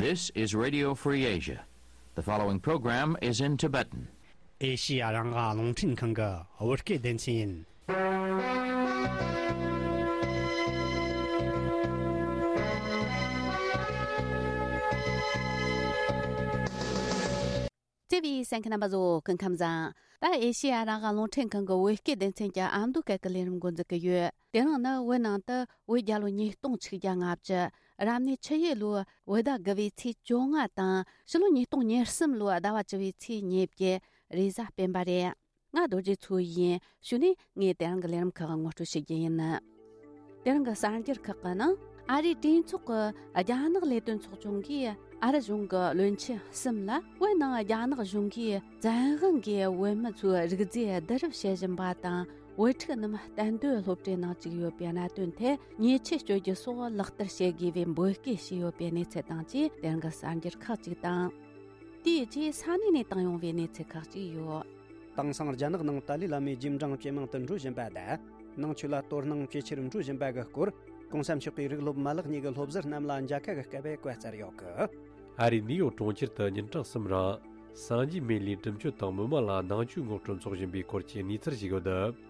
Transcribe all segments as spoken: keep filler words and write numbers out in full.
This is Radio Free Asia. The following program is in Tibetan. ཨེ་ཤི་ཡ་རང་དབང་རླུང་འཕྲིན་ཁང་གི་བོད་སྐད་སྡེ་ཚན་ཡིན། བརྩེ་བའི་གསན་མཁན་རྣམ་པ་ཚོ་སྐུ་ཁམས་བཟང་། ད་ཨེ་ཤི་ཡ་རང་དབང་རླུང་འཕྲིན་ཁང་གི་བོད་སྐད་སྡེ་ཚན་གྱི་ཨ་མདོ་སྐད་ཀྱི་ལས་རིམ་འགོ་འཛུགས་ཀྱི་ཡོད། དེ་རིང་ནི་བོད་ནང་དུ་བོད་རྒྱལ་ལོ་ཉིས་སྟོང་ཆིག་བརྒྱ་ལྔ་བཅུ། རབ་གནས་ཆུ་ཡོས་ལོའི་བོད་ཟླ་དགུ་བའི་ཚེས་བཅོ་ལྔ་དང་ཕྱི་ལོ་ཉིས་སྟོང་ཉེར་གསུམ་ལོའི་ཟླ་བ་བཅུ་བའི་ཚེས་ཉེར་བརྒྱད། རེས་གཟའ་སྤེན་པ་རེད། ང་རྡོ་རྗེ་མཚོ་ཡིན། གཞུག་ནས་ངས་དེ་རིང་གི་ལས་རིམ་ཁག་ངོ་སྤྲོད་བྱེད་རྒྱུ་ཡིན། དེ་རིང་གི་གསར་འགྱུར་ཁག་གི་ནང་ཨ་རིའི་གྲོས་ཚོགས་ཀྱི་རྒྱ་ནག་ལས་དོན་ཚོགས་ཆུང་གིས་ཨ་རི་གཞུང་གི་བློན་ཆེན་གསུམ་ལ་བོད་ནང་རྒྱ་ནག་གཞུང་གིས་བཙན་དབང་གིས་བོད་མི་ཚོའི་རིགས་རྫས་བསྡུ་རུབ་བྱེད་བཞིན་པ་དང་། བོད་ཕྲུག་རྣམས་གཏན་སྡོད་སློབ་གྲྭའི་ནང་བཅུག་ཡོད་པའི་གནད་དོན་ཐད་ཉེས་ཆད་གཅོད་རྒྱུ་སོགས་ལག་བསྟར་བྱེད་དགོས་པའི་འབོད་སྐུལ་བྱས་ཡོད་པའི་གནས་ཚུལ་དང་བཅས་དེ་རིང་གི་གསར་འགྱུར་ཁག་ཅིག་དང་། དེའི་རྗེས་ས་གནས་ནས་བཏང་ཡོང་བའི་གནས་ཚུལ་ཁག་ཅིག་ཡོད། དེང་སང་རྒྱ་ནག་ནང་ཏཱ་ལའི་བླ་མའི་རྗེས་འབྲང་ཇེ་མང་དུ་འགྲོ་བཞིན་པ་དང་། ནང་ཆོས་ལ་དོ་སྣང་ཇེ་ཆེར་འགྲོ་བཞིན་པ་གི་སྐོར། གོང་ས་མཆོག་གིས་རིགས་སློབ་མ་ལག་གཉིས་ཀྱི་སློབ་ཟུར་རྣམས་ལ་མཇལ་ཁ་གི་སྐབས་བཀའ་སྩལ་ཡོད་གི། ཨ་རིའི་ནིའུ་ཡོག་གྲོང་ཁྱེར་དུ་ཉིན་གྲངས་གསུམ་རིང་སངས་རྒྱས་སྨན་བླའི་དྲིན་གཅོད་དང་མི་མང་ལ་ནང་ཆོས་ངོ་སྤྲོད་འཚོགས་བཞིན་པའི་སྐོར་གྱི་གནས་ཚུལ་ཞིག་ཡོད།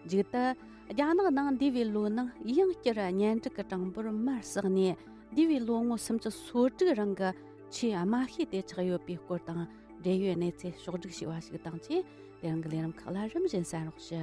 མཇུག་ཏུ། རྒྱ་ནག་ནང་འདས་པའི་ལོའི་ནང་ཡང་བསྐྱར་གཉེན་སྒྲིག་གི་གྲངས་འབོར་མར་བསགས་ནས། འདས་པའི་ལོ་ངོ་སུམ་ཅུ་སོ་དྲུག་རིང་གི་ཆེས་དམའ་ཤོས་དེ་ཆགས་ཡོད་པའི་སྐོར་དང་འབྲེལ་ཡོད་གནས་ཚུལ་ཕྱོགས་བསྒྲིགས་བྱས་པ་ཞིག་དང་བཅས། དེ་རིང་གི་ལས་རིམ་ཁག་ལ་རིམ་བཞིན་གསན་རོགས་ཞུ།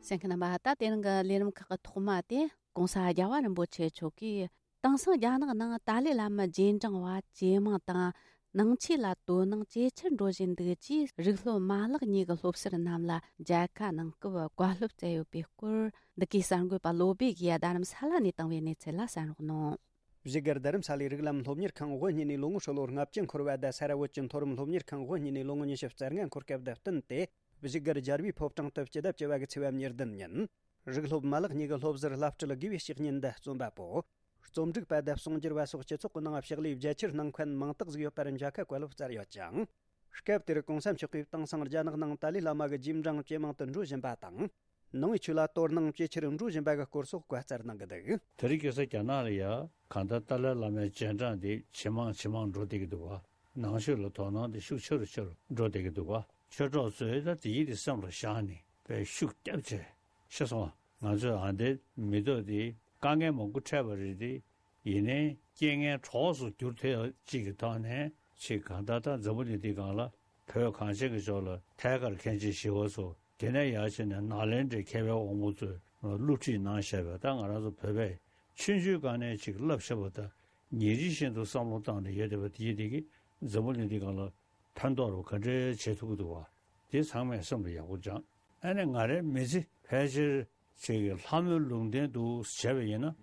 གསན་མཁན་རྣམ་པ། ད་དེ་རིང་གི་ལས་རིམ་ཁག་གི་ཐོག་མ་དེ་༸གོང་ས་༸རྒྱལ་བ་རིན་པོ་ཆེ་མཆོག་གིས། དེང་སང་རྒྱ་ནག་ནང་ཏཱ་ལའི་བླ་མ་རྗེས་འབྲང་བ་ཇེ་མང་དང་། ནང་ཆོས་ལ་དོ་སྣང་ཇེ་ཆེར་འགྲོ་བཞིན་འདུག་ཅེས་རིགས་སློབ་མ་ལག་གཉིས་ཀྱི་སློབ་ཟུར་རྣམས་ལ་མཇལ་ཁ་གནང་སྐབས་བཀའ་སློབ་སྩལ་ཡོད་པའི་སྐོར། འདི་གའི་གསར་འགོད་པ་བློ་བྷེ་གིས་རྡ་རམ་ས་ལ་ནས་བཏང་བའི་གནས་ཚུལ་ལ་གསན་རོགས་གནང་། བཞུགས་སྒར་རྡ་རམ་ས་ལའི་རིགས་ལམ་སློབ་གཉེར་ཁང་དབུ་བརྙེས་ནས་ལོ་ངོ་ཧྲིལ་ལོ་ལྔ་བཅུ་འཁོར་བ་དང་། ས་ར་བོད་ཀྱི་མཐོ་རིམ་སློབ་གཉེར་ཁང་དབུ་བརྙེས་ནས་ལོ་ངོ་ཉི་ཤུ་རྩ་ལྔ་འཁོར་སྐབས་དང་བསྟུན་ཏེ། བཞུགས་སྒར་རྒྱལ་བའི་ཕོ་བྲང་དུ་སྤྱི་ཟླ་བཅུ་བ་གི་ཚེས་པ་ཉེར་བདུན་ཉིན། རིགས་སློབ་མ་ལག་གཉིས་ཀྱི་སློབ་ཟུར་བླ་སྤྲུལ་དགེ་བའི་བཤེས་གཉེན་དང་རྩོམ་པ་པོ། རྩོམ་སྒྲིག་པ་དང་གསུང་སྒྱུར་བ་སོགས་སྤྱི་ཚོགས་ཀྱི་ནང་ཕྱག་ལས་རྒྱ་ཆེར་གནང་མཁན་མང་དག་ཟིག་ཡོད་པར་མཇལ་ཁ་བཀའ་སློབ་སྩལ་ཡོད་ཅིང་། སྐབས་དེར་གོང་ས་མཆོག་གིས་དེང་སང་རྒྱ་ནག་ནང་ཏཱ་ལའི་བླ་མ་གི་རྗེས་འབྲང་ཇེ་མང་དུ་འགྲོ་བཞིན་པ་དང་། ནང་པའི་ཆོས་ལ་དོ་སྣང་ཇེ་ཆེར་འགྲོ་བཞིན་པ་གི་སྐོར་སོགས་བཀའ་སྩལ་གནང་གི་འདུག། དེ་རིང་ཁ་སང་རྒྱ་ནག་ལ་ཡ་གང་ལྟར་ཏཱ་ལའི་བླ་མའི་རྗེས་འབྲང་དེ་ཇེ་མང་ཇེ་མང་འགྲོ་བསྡད་ཀྱི་འདུག་བ། ནང་ཆོས་ལ་དོ་སྣང་དེ་ཤུགས་ཆེ་རུ་ཆེ་རུ་འགྲོ་བསྡད་ཀྱི་འདུག་བ། ཆོས་གྲོགས་ཚོས་ད་དེ་ཡིད་དེ་སེམས་ལ་བཞག་ནས་དཔེ་ཤུགས་བརྒྱབ་བྱས། ཤེས་སོང་ང་ཚོས་ཨ་འདི་མི་ཐོག་དེ་དཀའ་ངལ་མང་པོ་འཕྲད་པ་རེད་དེ། ཡིན་ནའི་རྐྱེན་ངན་གྲོགས་སུ་འགྱུར་ཐུབ་ཡག་ཅིག་གི་ཐོག་ནས་ཅིག་གང་ལྟར་ད་འཛམ་བུ་གླིང་འདི་སྒང་ལ་བོད་གངས་ཅན་གྱི་ལྗོངས་ལ་ཐད་ཀར་མཁན་ཆེན་ཞི་བ་འཚོ། དེ་ནས་ཡར་བྱས་ནས་ནཱ་ལེནྡྲའི་མཁས་པའི་དབང་པོ་ཚོས་བསླུ་བྲིད་གནང་བཞག་པའི་ད་ང་རང་ཚོ་བོད་པས་ཆུང་ཆུང་སྒང་ནས་ཅིག་བསླབ་བཞག་པ་དང་ཉིན་རེ་བཞིན་དུ་བསམ་བློ་བཏང་ནས་ཡོད་བསྡད་པ་དེ་ཡིན་དེ་གིས་འཛམ་བུ་གླིང་འདི་སྒང་ལ་ཕན་ཐོགས་རུ་ག་འདྲའི་བྱེད་ཐུབ་ཀྱི་འདུག་བ། དེ་ཚང་མས་སེམས་ལ་ཡག་པོ་སྦྱངས། ཨ་ནི་ང་རའི་མི་ཚེ་ཕལ་ཆེར་ཅིག་གི་ལྷ་མོའི་ལུང་བསྟན་དུ་བྱས་པ་ཡིན་ན་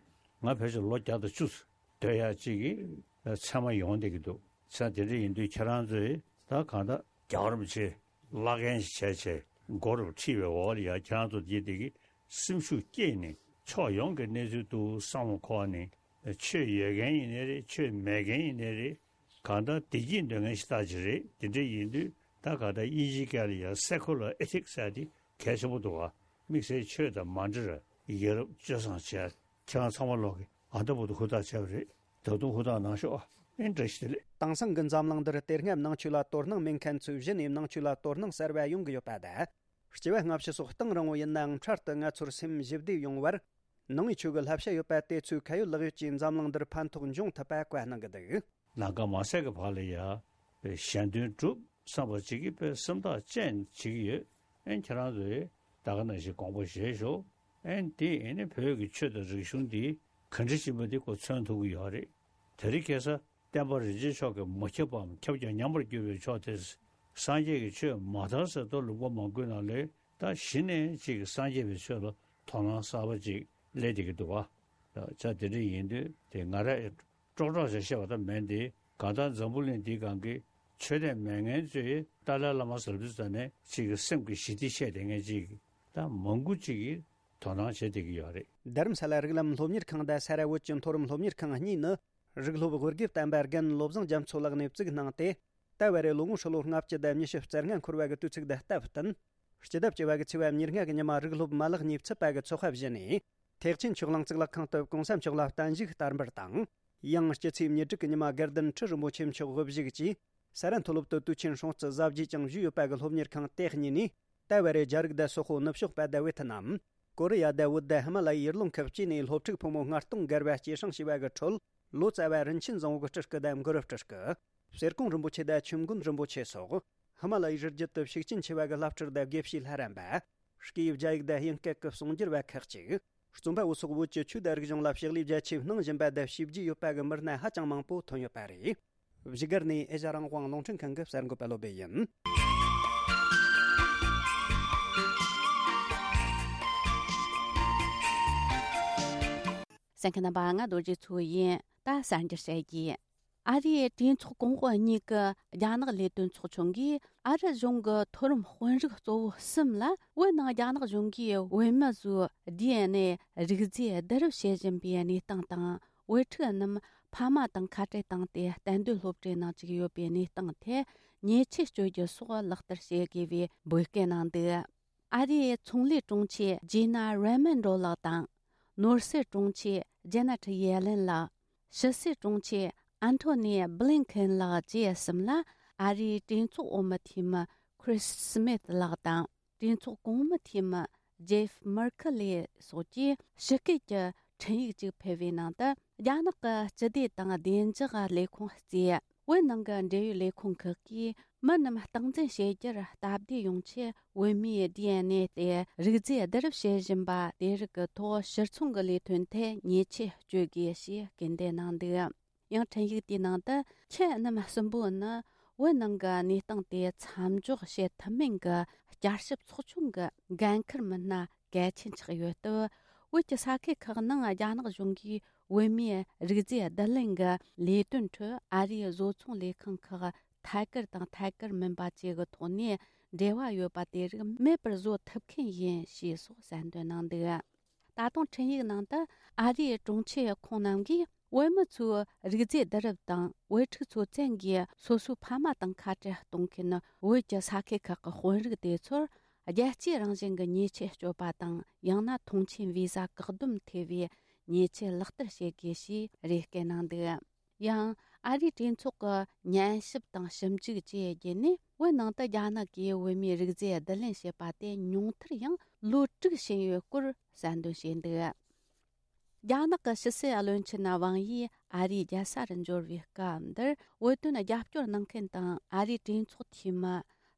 ང་ཕལ་ཆེར་ལོ་བརྒྱ་དང་བཅུ་སྡོད་ཡག་ཅིག་གི་ཚད་མ་ཡོང་བསྡད་ཀྱི་འདུག། ཚེ་དེ་འདྲ་ཡིན་དུས་ཁྱེད་རང་ཚོས་ད་གང་ལྟར་རྒྱལ་བ་རིན་པོ་ཆེ་བླ་རྒན་ཞིག་བྱས་བྱས་མགོ་རུ་ཁྲིད་པའི་འོག་ལ་ཡ་ཁྱེད་རང་ཚོ་དེ་དེ་གི་སེམས་ཤུགས་བསྐྱེད་ནས་ཕྱོགས་ཡོངས་ཀྱི་གནས་ཚུལ་དུ་བསམ་བློ་འཁོར་ནས་ཆོས་ཡོད་མཁན་ཡིན་ནའི་རེད། ཆོས་མེད་མཁན་ཡིན་ནའི་རེད། གང་ལྟར་བདེ་སྐྱིད་འདོད་མཁན་ཞིག་ལྟ་ཅི་རེད། དེ་འདྲ་ཡིན་དུས་ད་ག་ད་དབྱིན་ཇིའི་སྐད་ལ་ཡང་secular ethics ཟེར་དེ་གལ་ཆེན་པོ་འདུག་ག། དམིགས་བསལ་ཆོས་དང་མ་འབྲེལ་བར་ཡ་རབས་སྤྱོད་བཟང་བྱས། ཁྱེད་རང་ཚང་མ་ལོག་གི་ཨ་ད་བུ་དུ་ཧུར་ཐག་བྱས་པ་རེད། ད་དུང་ཧུར་ཐག་གནང་ཤོག་ཨ། ཨེ་བཀྲ་ཤིས་བདེ་ལེགས། དེང་སང་གི་འཛམ་གླིང་འདིར་དེ་སྔ་ནང་ཆོས་ལ་དོ་སྣང་མེད་མཁན་ཚོས་གཞི་ནས་ནང་ཆོས་ལ་དོ་སྣང་གསར་བ་ཡོང་གི་ཡོད་པ་དང་། སྐྱེ་བ་སྔ་ཕྱི་སོགས་གཏིང་རིང་བོ་ཡིན་ནའང་འཕྲལ་དུ་ང་ཚོར་སེམས་ཞི་བདེ་ཡོང་བར། ནང་པའི་ཆོས་ཀྱི་བསླབ་བྱ་ཡོད་པ་དེ་ཚོས་ཁ་ཡོད་ལག་ཡོད་ཀྱིས་འཛམ་གླིང་འདིར་ཕན་ཐོགས་འབྱུང་ཐུབ་པ་བཀའ་གནང་གི་འདུག། ལམ་ཁ་མ་ཟད་ཀྱི་བར་ལ་ཡ། གཞན་དོན་སྒྲུབ་བསམ་པ་ཅིག་གིས་དཔེ་སེམས་ཐག་བཅད་བྱེད་ཀྱི་ཡོད། ཨེ་ཁྱེད་རང་ཚོས་ད་ག་ནང་བཞིན་དགོངས་པ་བཞེས་ཤོག། ཨེ་འདི་ཨེ་ནི་བོད་ཀྱི་ཆོས་དང་རིག་གཞུང་འདི་ག་འདྲ་ཞིག་མ་འདི་ཁོ་མཚོན་ཐུབ་ཀྱི་ཡོད་རེད། དེ་རིང་ཁ་སང་བསྟན་པ་རིན་ཆེན་མཆོག་གིས་མ་ཁྱབ་པའམ་ཁྱབ་ཀྱང་ཉམས་པར་གྱུར་པའི་ཕྱོགས་དེ། སངས་རྒྱས་ཀྱི་ཆོས་མ་དར་ཟེར་དུས་ལུང་པ་མང་པོའི་ནང་ལས་ད་གཞི་ནས་ཅིག་སངས་རྒྱས་པའི་ཆོས་ལ་དོ་སྣང་གསར་པ་ཅིག་སླེབས་བསྡད་ཀྱི་འདུག་བ། ད་ཆ་དེ་འདྲ་ཡིན་དུས་དེ་ང་ར་ཀྲོག་ཀྲོག་བྱས་བཤད་པ་ད་མིན་ཏེ། གང་ལྟར་འཛམ་བུ་གླིང་འདིའི་སྒང་གི་ཆོས་དད་མེད་མཁན་ཚོས་ཏཱ་ལའི་བླ་མ་ཟེར་དུས་ཙ་ནས་ཅིག་གི་སེམས་ཀྱི་ཞི་བདེ་བཤད་བསྡད་མཁན་ཅིག་ད་མང་པོ་ཅིག་གིས་དོ་སྣང་བྱེད་བསྡད་ཀྱི་ཡོད་རེད། རྡ་རམ་ས་ལ་རིགས་ལམ་སློབ་གཉེར་ཁང་དང་ས་ར་བོད་ཀྱི་མཐོ་རིམ་སློབ་གཉེར་ཁང་གཉིས་ནི། རིགས་སློབ་དབུ་དགེ་བསྟན་པ་རྒན་བློ་བཟང་རྒྱ་མཚོ་ལགས་ནས་བཙུགས་གནང་སྟེ། ད་བར་རེ་ལོ་ངོ་ཧྲིལ་ལོ་ལྔ་བཅུ་དང་ཉི་ཤུ་རྩ་ལྔ་འཁོར་བ་གི་དུས་ཚིགས་དང་སྟབས་བསྟུན། སྤྱི་ཟླ་བཅུ་བ་གི་ཚེས་པ་ཉེར་ལྔ་གི་ཉི་མ་རིགས་སློབ་མ་ལག་གཉིས་ཚུད་པ་གི་ཚོགས་པ་བཞི་ནས། ཐེག་ཆེན་ཆོས་གླིང་གཙུག་ལག་ཁང་དུ་གོང་ས་མཆོག་ལ་བརྟན་བཞུགས་བསྟར་འབུལ་དང་། ཡང་སྤྱི་ཚེས་ཉེར་དྲུག་གི་ཉི་མ་དགའ་ལྡན་ཁྲི་རིན་པོ་ཆེ་མཆོག་དབུ་བཞུགས་ཀྱིས་ས་རཱ་མཐོ་སློབ་ཏུ་དུས་ཆེན་སྲུང་བརྩི་གཟབ་རྒྱས་ཀྱང་ཞུས་ཡོད་པ་གི་སློབ་གཉེར་ཁང་དེ་གཉིས་ནས། ཏཱ་ཝེ་རེ་རྒྱ་རིགས་དང་སོག་པོ་ནུབ་ཕྱོགས་པ་དང་ཝེ་ཐི་ནམ། ཀོ་རི་ཡ་དང་བོད་དང་ཧི་མ་ལ་ཡའི་ཡུལ་ལུང་ཁག་བཅས་ནས་སློབ་ཕྲུག་ཕོ་མོ་ལྔ་སྟོང་བརྒལ་བ་སྐྱེད་སྲིང་བྱས་པ་གི་ཁྲོད། ལོ་ཙཱ་བ་རིན་ཆེན་བཟང་པོ་གི་སྤྲུལ་སྐུ་དང་གུ་རུ་སྤྲུལ་སྐུ། གསེར་ཀོང་རིན་པོ་ཆེ་དང་ཆོས་མགོན་རིན་པོ་ཆེ་སོགས། ཧི་མ་ལ་ཡའི་རི་རྒྱུད་དུ་ཤུགས་རྐྱེན་ཆེ་བ་གི་བླ་སྤྲུལ་དང་དགེ་བཤེས་ལྷ་རམས་པ། སྐད་ཡིག་རྒྱ་ཡིག་དང་དབྱིན་སྐད་ཀྱི་གསུང་སྒྱུར་བ་ཁག་ཅིག། རྩོམ་པ་པོ་སོགས་བོད་ཀྱི་ཆོས་དང་རིག་གཞུང་ལ་ཕྱག་ལས་རྒྱ་ཆེ་གནང་བཞིན་པ་དང་བྱས་རྗེས་ཡོད་པ་གི་མི་སྣ་ཧ་ཅང་མང་པོ་ཐོན་ཡོད་པ་རེད། བཞུགས་སྒར་ནས་ཨེ་ཤ་རང་དབང་རླུང་འཕྲིན་ཁང་གི་གསར་འགོད་པ་བློ་བྷེ་ཡིན། གསན་མཁན་རྣམ་པ། ང་རྡོ་རྗེ་མཚོ་ཡིན། ད་གསར་འགྱུར་བཤད་རྒྱུ། ཨ་རིའི་གྲོས་ཚོགས་གོང་འོག་གཉིས་ཀྱི་རྒྱ་ནག་ལས་དོན་ཚོགས་ཆུང་གིས་ཨ་རི་གཞུང་གི་མཐོ་རིམ་དཔོན་རིགས་གཙོ་བོ་གསུམ་ལ། བོད་ནང་རྒྱ་ནག་གཞུང་གིས་བོད་མི་ཚོའི་ཌི་ཨེན་ཨེ་རིགས་རྫས་བསྡུ་རུབ་བྱེད་བཞིན་པའི་གནས་སྟངས་དང་། བོད་ཕྲུག་རྣམས་ཕ་མ་དང་ཁ་བྲལ་བཏང་སྟེ་གཏན་སྡོད་སློབ་གྲྭའི་ནང་བཅུག་ཡོད་པའི་གནས་སྟངས་ཐད་ཉེས་ཆད་གཅོད་རྒྱུ་སོགས་ལག་བསྟར་བྱེད་དགོས་པའི་འབོད་སྐུལ་གནང་འདུག། ཨ་རིའི་ཚོང་ལས་དྲུང་ཆེ་ཇི་ན་རེ་མོན་ཌོ་ལགས་དང་། ནོར་སྲིད་དྲུང་ཆེ་ཇེ་ནེ་ཊི་ཡེ་ལེན་ལགས། ཕྱི་སྲིད་དྲུང་ཆེ་ཨན་ཐོ་ནི་བྷི་ལིན་ཁེན་ལགས་བཅས་གསུམ་ལ་ཨ་རིའི་གྲོས་ཚོགས་འོག་མི་འཐུས་མི་ཁྲིས་སི་མིད་ལགས་དང་། གྲོས་ཚོགས་གོང་མི་འཐུས་མི་ཇེབ་མར་ཁེ་ལེ་སོགས་ཀྱིས་ཞི་བཀོད་ཀྱི་འཕྲིན་ཡིག་ཅིག་ཕུལ་བའི་ནང་དུ། རྒྱ་ནག་གི་སྤྱི་བདེ་དང་བདེ་འཇགས་ལས་ཁུངས་གཙོས་བོད་ནང་གི་འབྲེལ་ཡོད་ལས་ཁུངས་ཁག་གིས་མི་རྣམས་སྟངས་འཛིན་བྱེད་རྒྱུར་སྟབས་བདེ་ཡོང་ཆེད། བོད་མིའི་ཌི་ཨེན་ཨེ་དེ་རིགས་རྫས་བསྡུ་རུབ་བྱེད་བཞིན་པ་དེ་རིགས་ཀྱི་ཐོག་ཕྱིར་ཚོང་གི་ལས་དོན་ཐད་ཉེས་ཆད་གཅོད་དགོས་ཞེས་སྐུལ་འདེད་གནང་འདུག། ཡང་འཕྲིན་ཡིག་དེའི་ནང་དུ། ཁྱེད་རྣམས་གསུམ་པོ་ནི་བོད་ནང་གི་གནས་སྟངས་དེ་མཚམས་འཇོག་བྱེད་ཐུབ་མིན་གྱི་བསྐྱར་ཞིབ་ཚོགས་ཆུང་གི་འགན་འཁུར་མི་སྣ་གལ་ཆེན་ཆགས་ཡོད་སྟབས། བོད་ཀྱི་ས་ཁུལ་ཁག་ནང་རྒྱ་ནག་གཞུང་གིས་བོད་མིའི་རིགས་རྫས་བསྡུ་ལེན་གྱི་ལས་དོན་ཁྲོད་ཨ་རིའི་བཟོ་ཚོང་ལས་ཁང་ཁག་ཐད་ཀར་དང་ཐད་ཀར་མིན་པ་བཅས་ཀྱི་ཐོག་ནས་འབྲེལ་བ་ཡོད་པ་དེ་རིགས་མེད་པར་བཟོ་ཐུབ་མཁན་ཡིན་ཞེས་སོགས་གསལ་འདོན་གནང་འདུག། ད་དུང་འཕྲིན་ཡིག་ནང་དུ། ཨ་རིའི་དྲུང་ཆེ་ཁོང་རྣམས་ཀྱིས་བོད་མི་ཚོའི་རིགས་རྫས་བསྡུ་རུབ་དང་བོད་ཕྲུག་ཚོ་བཙན་གྱིས་སོ་སོའི་ཕ་མ་དང་ཁ་བྲལ་གཏོང་མཁན་བོད་ཀྱི་ས་ཁུལ་ཁག་གི་དཔོན་རིགས་དེ་ཚོར་རྒྱལ་གཅེས་རང་བཞིན་གྱི་ཉེས་ཆད་གཅོད་པ་དང་། ཡང་ན་ཐོངས་མཆན་བི་ཟ་བཀག་སྡོམ་ཐེ་བའི་ཉེས་ཆད་ལག་བསྟར་བྱེད་དགོས་ཞེས་རེ་སྐུལ་གནང་འདུག། ཡང་ཨ་རིའི་གྲོས་ཚོགས་ཀྱི་ཉན་ཞིབ་དང་ཞིབ་འཇུག་བཅས་བརྒྱུད་ནས། བོད་ནང་དུ་རྒྱ་ནག་གིས་བོད་མིའི་རིགས་རྫས་བསྡུ་ལེན་བྱས་པ་དེ་ཉུང་མཐར་ཡང་ལོ་དྲུག་ཕྱིན་ཡོད་སྐོར་གསལ་འདོན་བྱས་འདུག། རྒྱ་ནག་གི་ཕྱི་སྲིད་བློན་ཆེན་ཝང་ཡི་ཨ་རིའི་རྒྱལ་ས་རུ་འབྱོར་བའི་སྐབས་འདིར། བོད་དོན་རྒྱབ་སྐྱོར་གནང་མཁན་དང་ཨ་རིའི་གྲོས་ཚོགས་འཐུས་མི།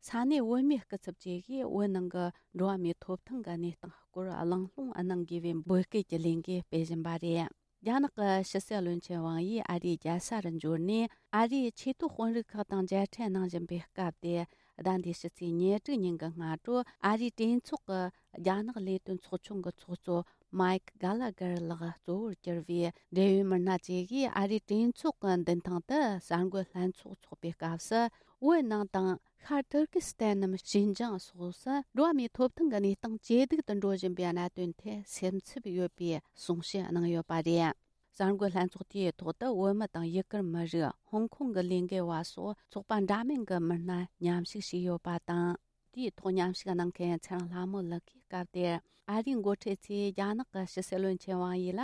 ས་གནས་བོད་མིའི་སྐུ་ཚབ་བཅས་ཀྱིས་བོད་ནང་གི་འགྲོ་བ་མིའི་ཐོབ་ཐང་གི་གནས་སྟངས་སྐོར་གླེང་སློང་གནང་དགོས་པའི་འབོད་སྐུལ་གྱི་ལས་འགུལ་སྤེལ་བཞིན་པ་རེད། རྒྱ་ནག་གི་ཕྱི་སྲིད་བློན་ཆེན་ཝང་ཡི་ཨ་རིའི་རྒྱལ་ས་རུ་འབྱོར་ནས། ཨ་རིའི་ཆེས་མཐོའི་དཔོན་རིགས་ཁག་དང་མཇལ་འཕྲད་གནང་བཞིན་པའི་སྐབས་དེ། ཟླ་འདིའི་ཕྱི་ཚེས་ཉེར་དྲུག་ཉིན་གྱི་སྔ་དྲོ། ཨ་རིའི་གྲོས་ཚོགས་ཀྱི་རྒྱ་ནག་ལས་དོན་ཚོགས་ཆུང་གི་ཚོགས་གཙོ་མའིག་གྷ་ལ་གར་ལགས་གཙོ་བོར་གྱུར་བའི་འབྲེལ་ཡོད་མི་སྣ་བཅས་ཀྱིས་ཨ་རིའི་གྲོས་ཚོགས་ཀྱི་མདུན་ཐང་དུ་གསར་འགོད་ལྷན་ཚོགས་འཚོགས་པའི་སྐབས་སུ། བོད་ནང་དང་། ཤར་ཏུར་ཀི་སི་ཐན་ནམ་ཤིན་ཅང་སོགས་སུ་འགྲོ་བ་མིའི་ཐོབ་ཐང་གི་གནས་སྟངས་ཇེ་སྡུག་ཏུ་འགྲོ་བཞིན་པའི་གནད་དོན་ཐད་སེམས་འཚབ་ཡོད་པའི་གསུང་བཤད་གནང་ཡོད་པ་རེད། གསར་འགོད་ལྷན་ཚོགས་དེའི་ཐོག་ཏུ་བོད་མི་དང་ཡུ་གུར་མི་རིགས། ཧོང་ཀོང་གི་ལས་འགུལ་བ་སོགས་ཚོགས་པ་འདྲ་མིན་གྱི་མི་སྣ་མཉམ་ཞུགས་བྱས་ཡོད་པ་དང་། དེའི་ཐོག་མཉམ་ཞུགས་གནང་མཁན་ཚེ་རིང་ལྷ་མོ་ལགས་ཀྱིས་སྐབས་དེར། ཨ་རིའི་འགོ་ཁྲིད་ཚོས་རྒྱ་ནག་གི་ཕྱི་སྲིད་བློན་ཆེན་ཝང་ཡི་ལ།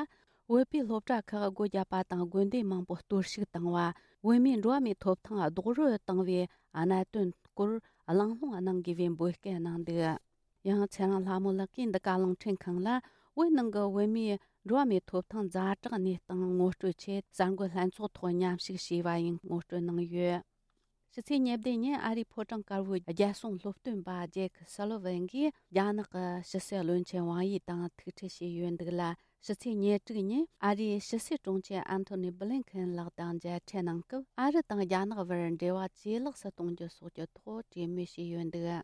བོད་པའི་སློབ་གྲྭ་ཁག་སྒོ་བརྒྱབ་པ་དང་། དགོན་སྡེ་མང་པོ་གཏོར་བཤིག་བཏང་བ། བོད་མིའི་འགྲོ་བ་མིའི་ཐོབ་ཐང་རྡོག་རོལ་བཏང་བའི་གནད་དོན་སྐོར་གླེང་སློང་གནང་དགོས་པའི་འབོད་སྐུལ་གནང་འདུག། ཡང་ཚེ་རིང་ལྷ་མོ་ལགས་ཀྱིས་འདི་ག་རླུང་འཕྲིན་ཁང་ལ། བོད་ནང་གི་བོད་མིའི་འགྲོ་བ་མིའི་ཐོབ་ཐང་ཛ་དྲག་གནས་སྟངས་ངོ་སྤྲོད་ཆེད། གསར་འགོད་ལྷན་ཚོགས་ཐོག་མཉམ་ཞུགས་བྱས་པ་ཡིན་ངོ་སྤྲོད་གནང་ཡོད། ཕྱི་ཚེས་ཉེར་བདུན་ཉིན་ཨ་རིའི་ཕོ་བྲང་དཀར་པོའི་རྒྱལ་སྲུང་སློབ་སྟོན་པ་ཇེག་སུ་ལི་ཝན་གྱིས་རྒྱ་ནག་གི་ཕྱི་སྲིད་བློན་ཆེན་ཝང་ཡི་དང་ཐུག་འཕྲད་བྱས་ཡོད་འདུག་ལ། ཕྱི་ཚེས་ཉེར་དྲུག་ཉིན་ཨ་རིའི་ཕྱི་སྲིད་དྲུང་ཆེ་ཨན་ཐོ་ནི་བྷི་ལིན་ཁེན་ལགས་དང་མཇལ་འཕྲད་གནང་སྐབས། ཨ་རི་དང་རྒྱ་ནག་བར་འབྲེལ་བ་ཇེ་ལེགས་སུ་གཏོང་རྒྱུ་སོགས་ཀྱི་ཐོག་གྲོས་མོལ་བྱས་ཡོད་འདུག།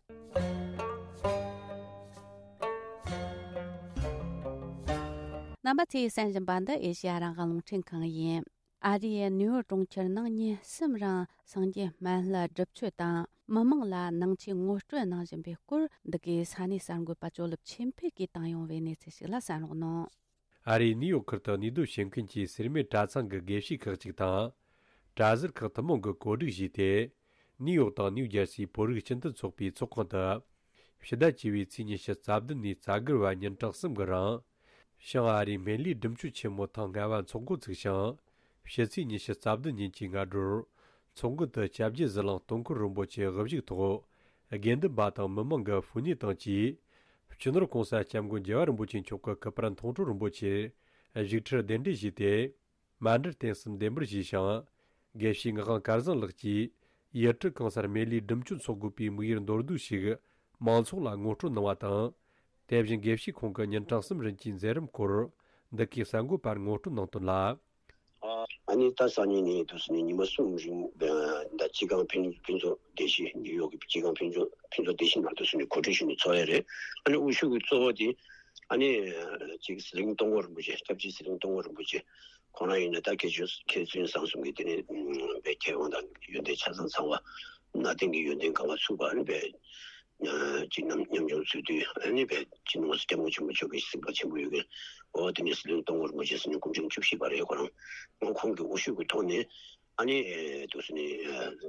རྣམ་པ་ཚོས་གསན་བཞིན་པ་འདི་ཨེ་ཤེ་ཡ་རང་དབང་རླུང་འཕྲིན་ཁང་ཡིན། ཨ་རིའི་ནིའུ་ཡོག་གྲོང་ཁྱེར་ནང་ཉིན་གསུམ་རིང་སངས་རྒྱས་སྨན་བླའི་སྒྲུབ་མཆོད་དང་། མི་མང་ལ་ནང་ཆོས་ངོ་སྤྲོད་གནང་བཞིན་པའི་སྐོར། འདི་གའི་ས་གནས་གསར་འགོད་པ་ཅོ་ལིབ་ཆོས་འཕེལ་གྱིས་བཏང་ཡོང་བའི་གནས་ཚུལ་ཞིག་ལ་གསན་རོགས་གནང་། ཨ་རིའི་ནིའུ་ཡོག་ཁུལ་དུ་གནས་སྡོད་བྱེད་མཁན་གྱི་སེར་སྨད་གྲྭ་ཚང་གི་དགེ་བཤེས་ཁག་ཅིག་དང་། གྲྭ་ཟུར་ཁག་ཐུན་མོང་གིས་གོ་སྒྲིག་བྱས་ཏེ། ནིའུ་ཡོག་དང་ནིའུ་ཇར་སིའི་བོད་རིགས་སྤྱི་མཐུན་ཚོགས་པའི་ཚོགས་ཁང་དུ། ཕྱི་ཟླ་བཅུ་བའི་ཚེས་ཉི་ཤུ་རྩ་བདུན་ནས་རྩ་དགུ་བར་ཉིན་གྲངས་གསུམ་གྱི་རིང་། བྱང་ཨ་རིའི་སྨན་བླའི་སྒྲུབ་མཆོད་ཆེན་མོ་ཐེངས་ལྔ་བ་འཚོགས་འགོ་ཚུགས་ཤིང་། ཕྱི་ཚེས་ཉི་ཤུ་རྩ་བདུན་ཉིན་གྱི་སྔ་དྲོར། ཚོགས་མགོན་དུ་སྐྱབས་རྗེ་ཟི་ལིང་སྟོང་འཁོར་རིན་པོ་ཆེ་དབུ་བཞུགས་ཐོག་དགེ་འདུན་པ་དང་མི་མང་གི་ཕུ་ནུས་དང་བཅས། སྤྱི་ནོར་གོང་ས་སྐྱབས་མགོན་རྒྱལ་བ་རིན་པོ་ཆེ་མཆོག་གི་སྐུ་པར་མཐོང་གྲོལ་རིན་པོ་ཆེར་བཞུགས་ཁྲིར་གདན་འདྲེན་ཞུས་ཏེ། མཎྜལ་རྟེན་གསུམ་བདེ་འབུལ་ཞུས་ཤིང་། དགེ་བཤེས་ངག་དབང་སྐལ་བཟང་ལགས་ཀྱིས་ཡུལ་གྲུ་གང་སར་སྨན་བླའི་སྒྲུབ་མཆོད་འཚོགས་དགོས་པའི་དམིགས་ཡུལ་མདོར་བསྡུས་ཤིག་མང་ཚོགས་ལ་ངོ་སྤྲོད་གནང་བ་དང་། དེ་བཞིན་དགེ་བཤེས་ཁོང་གི་ཉིན་གྲངས་གསུམ་རིང་གི་མཛད་རིམ་སྐོར་འདི་གའི་གསར་འགོད་པར་ངོ་སྤྲོད་གནང་དོན་ལ། ཨ་ནི་ད་སང་ཉིན་ནས་འདུག་སེ་ནས་ཉི་མ་གསུམ་རིང་ད་སྤྱི་ཁང་ཕུན་ཕུན་ཚོགས་སྡེ་བཞི་ནིའུ་ཡོག་གི་སྤྱི་ཁང་ཕུན་ཚོགས་ཕུན་ཚོགས་སྡེ་བཞི་ནང་འདུག་སེ་ནས་གོ་སྒྲིག་ཞུས་ནས་ཚོགས་ཡ་རེད། ཨ་ནི་དབུ་བཞུགས་ཀྱི་གཙོ་བོ་དེ་ཨ་ནི་ཅིག་ཟི་ལིང་སྟོང་འཁོར་རིན་པོ་ཆེ། སྐྱབས་རྗེ་ཟི་ལིང་སྟོང་འཁོར་རིན་པོ་ཆེ་ཁོང་རང་ཡིན་ན་ད་མཁས་མཆོག་མཁས་བཙུན་བཟང་གསུམ་གྱི་དེ་ནས་པའི་མཁས་དབང་དང་ཡོན་ཏན་ཆ་ཚང་ཚང་བ། གནའ་དེང་གི་ཡོན་ཏན་གང་ག་ཚུགས་པ་ཨ་ནི་པའི་ཅིག་ནམ་ཉམ་ཆུང་ཚུལ་དུས་ཨ་ནི་པའི་སྤྱི་ནོར་སྐྱབས་མགོན་ཆེན་པོ་མཆོག་གི་གཟིགས་པ་ཆེན་པོ་ཡོད་མཁན། འོ་དེ་ནས་ཟི་ལིང་སྟོང་འཁོར་རིན་པོ་ཆེ་ཟེར་ནས་སྐུ་ཕྲེང་བཅུ་བཞི་པ་རེད། ཁོ་རང་ངོ་ཁོང་གི་དབུ་བཞུགས་ཀྱི་ཐོག་ནས་ཨ་ནི་འདུག་སེ་ནས་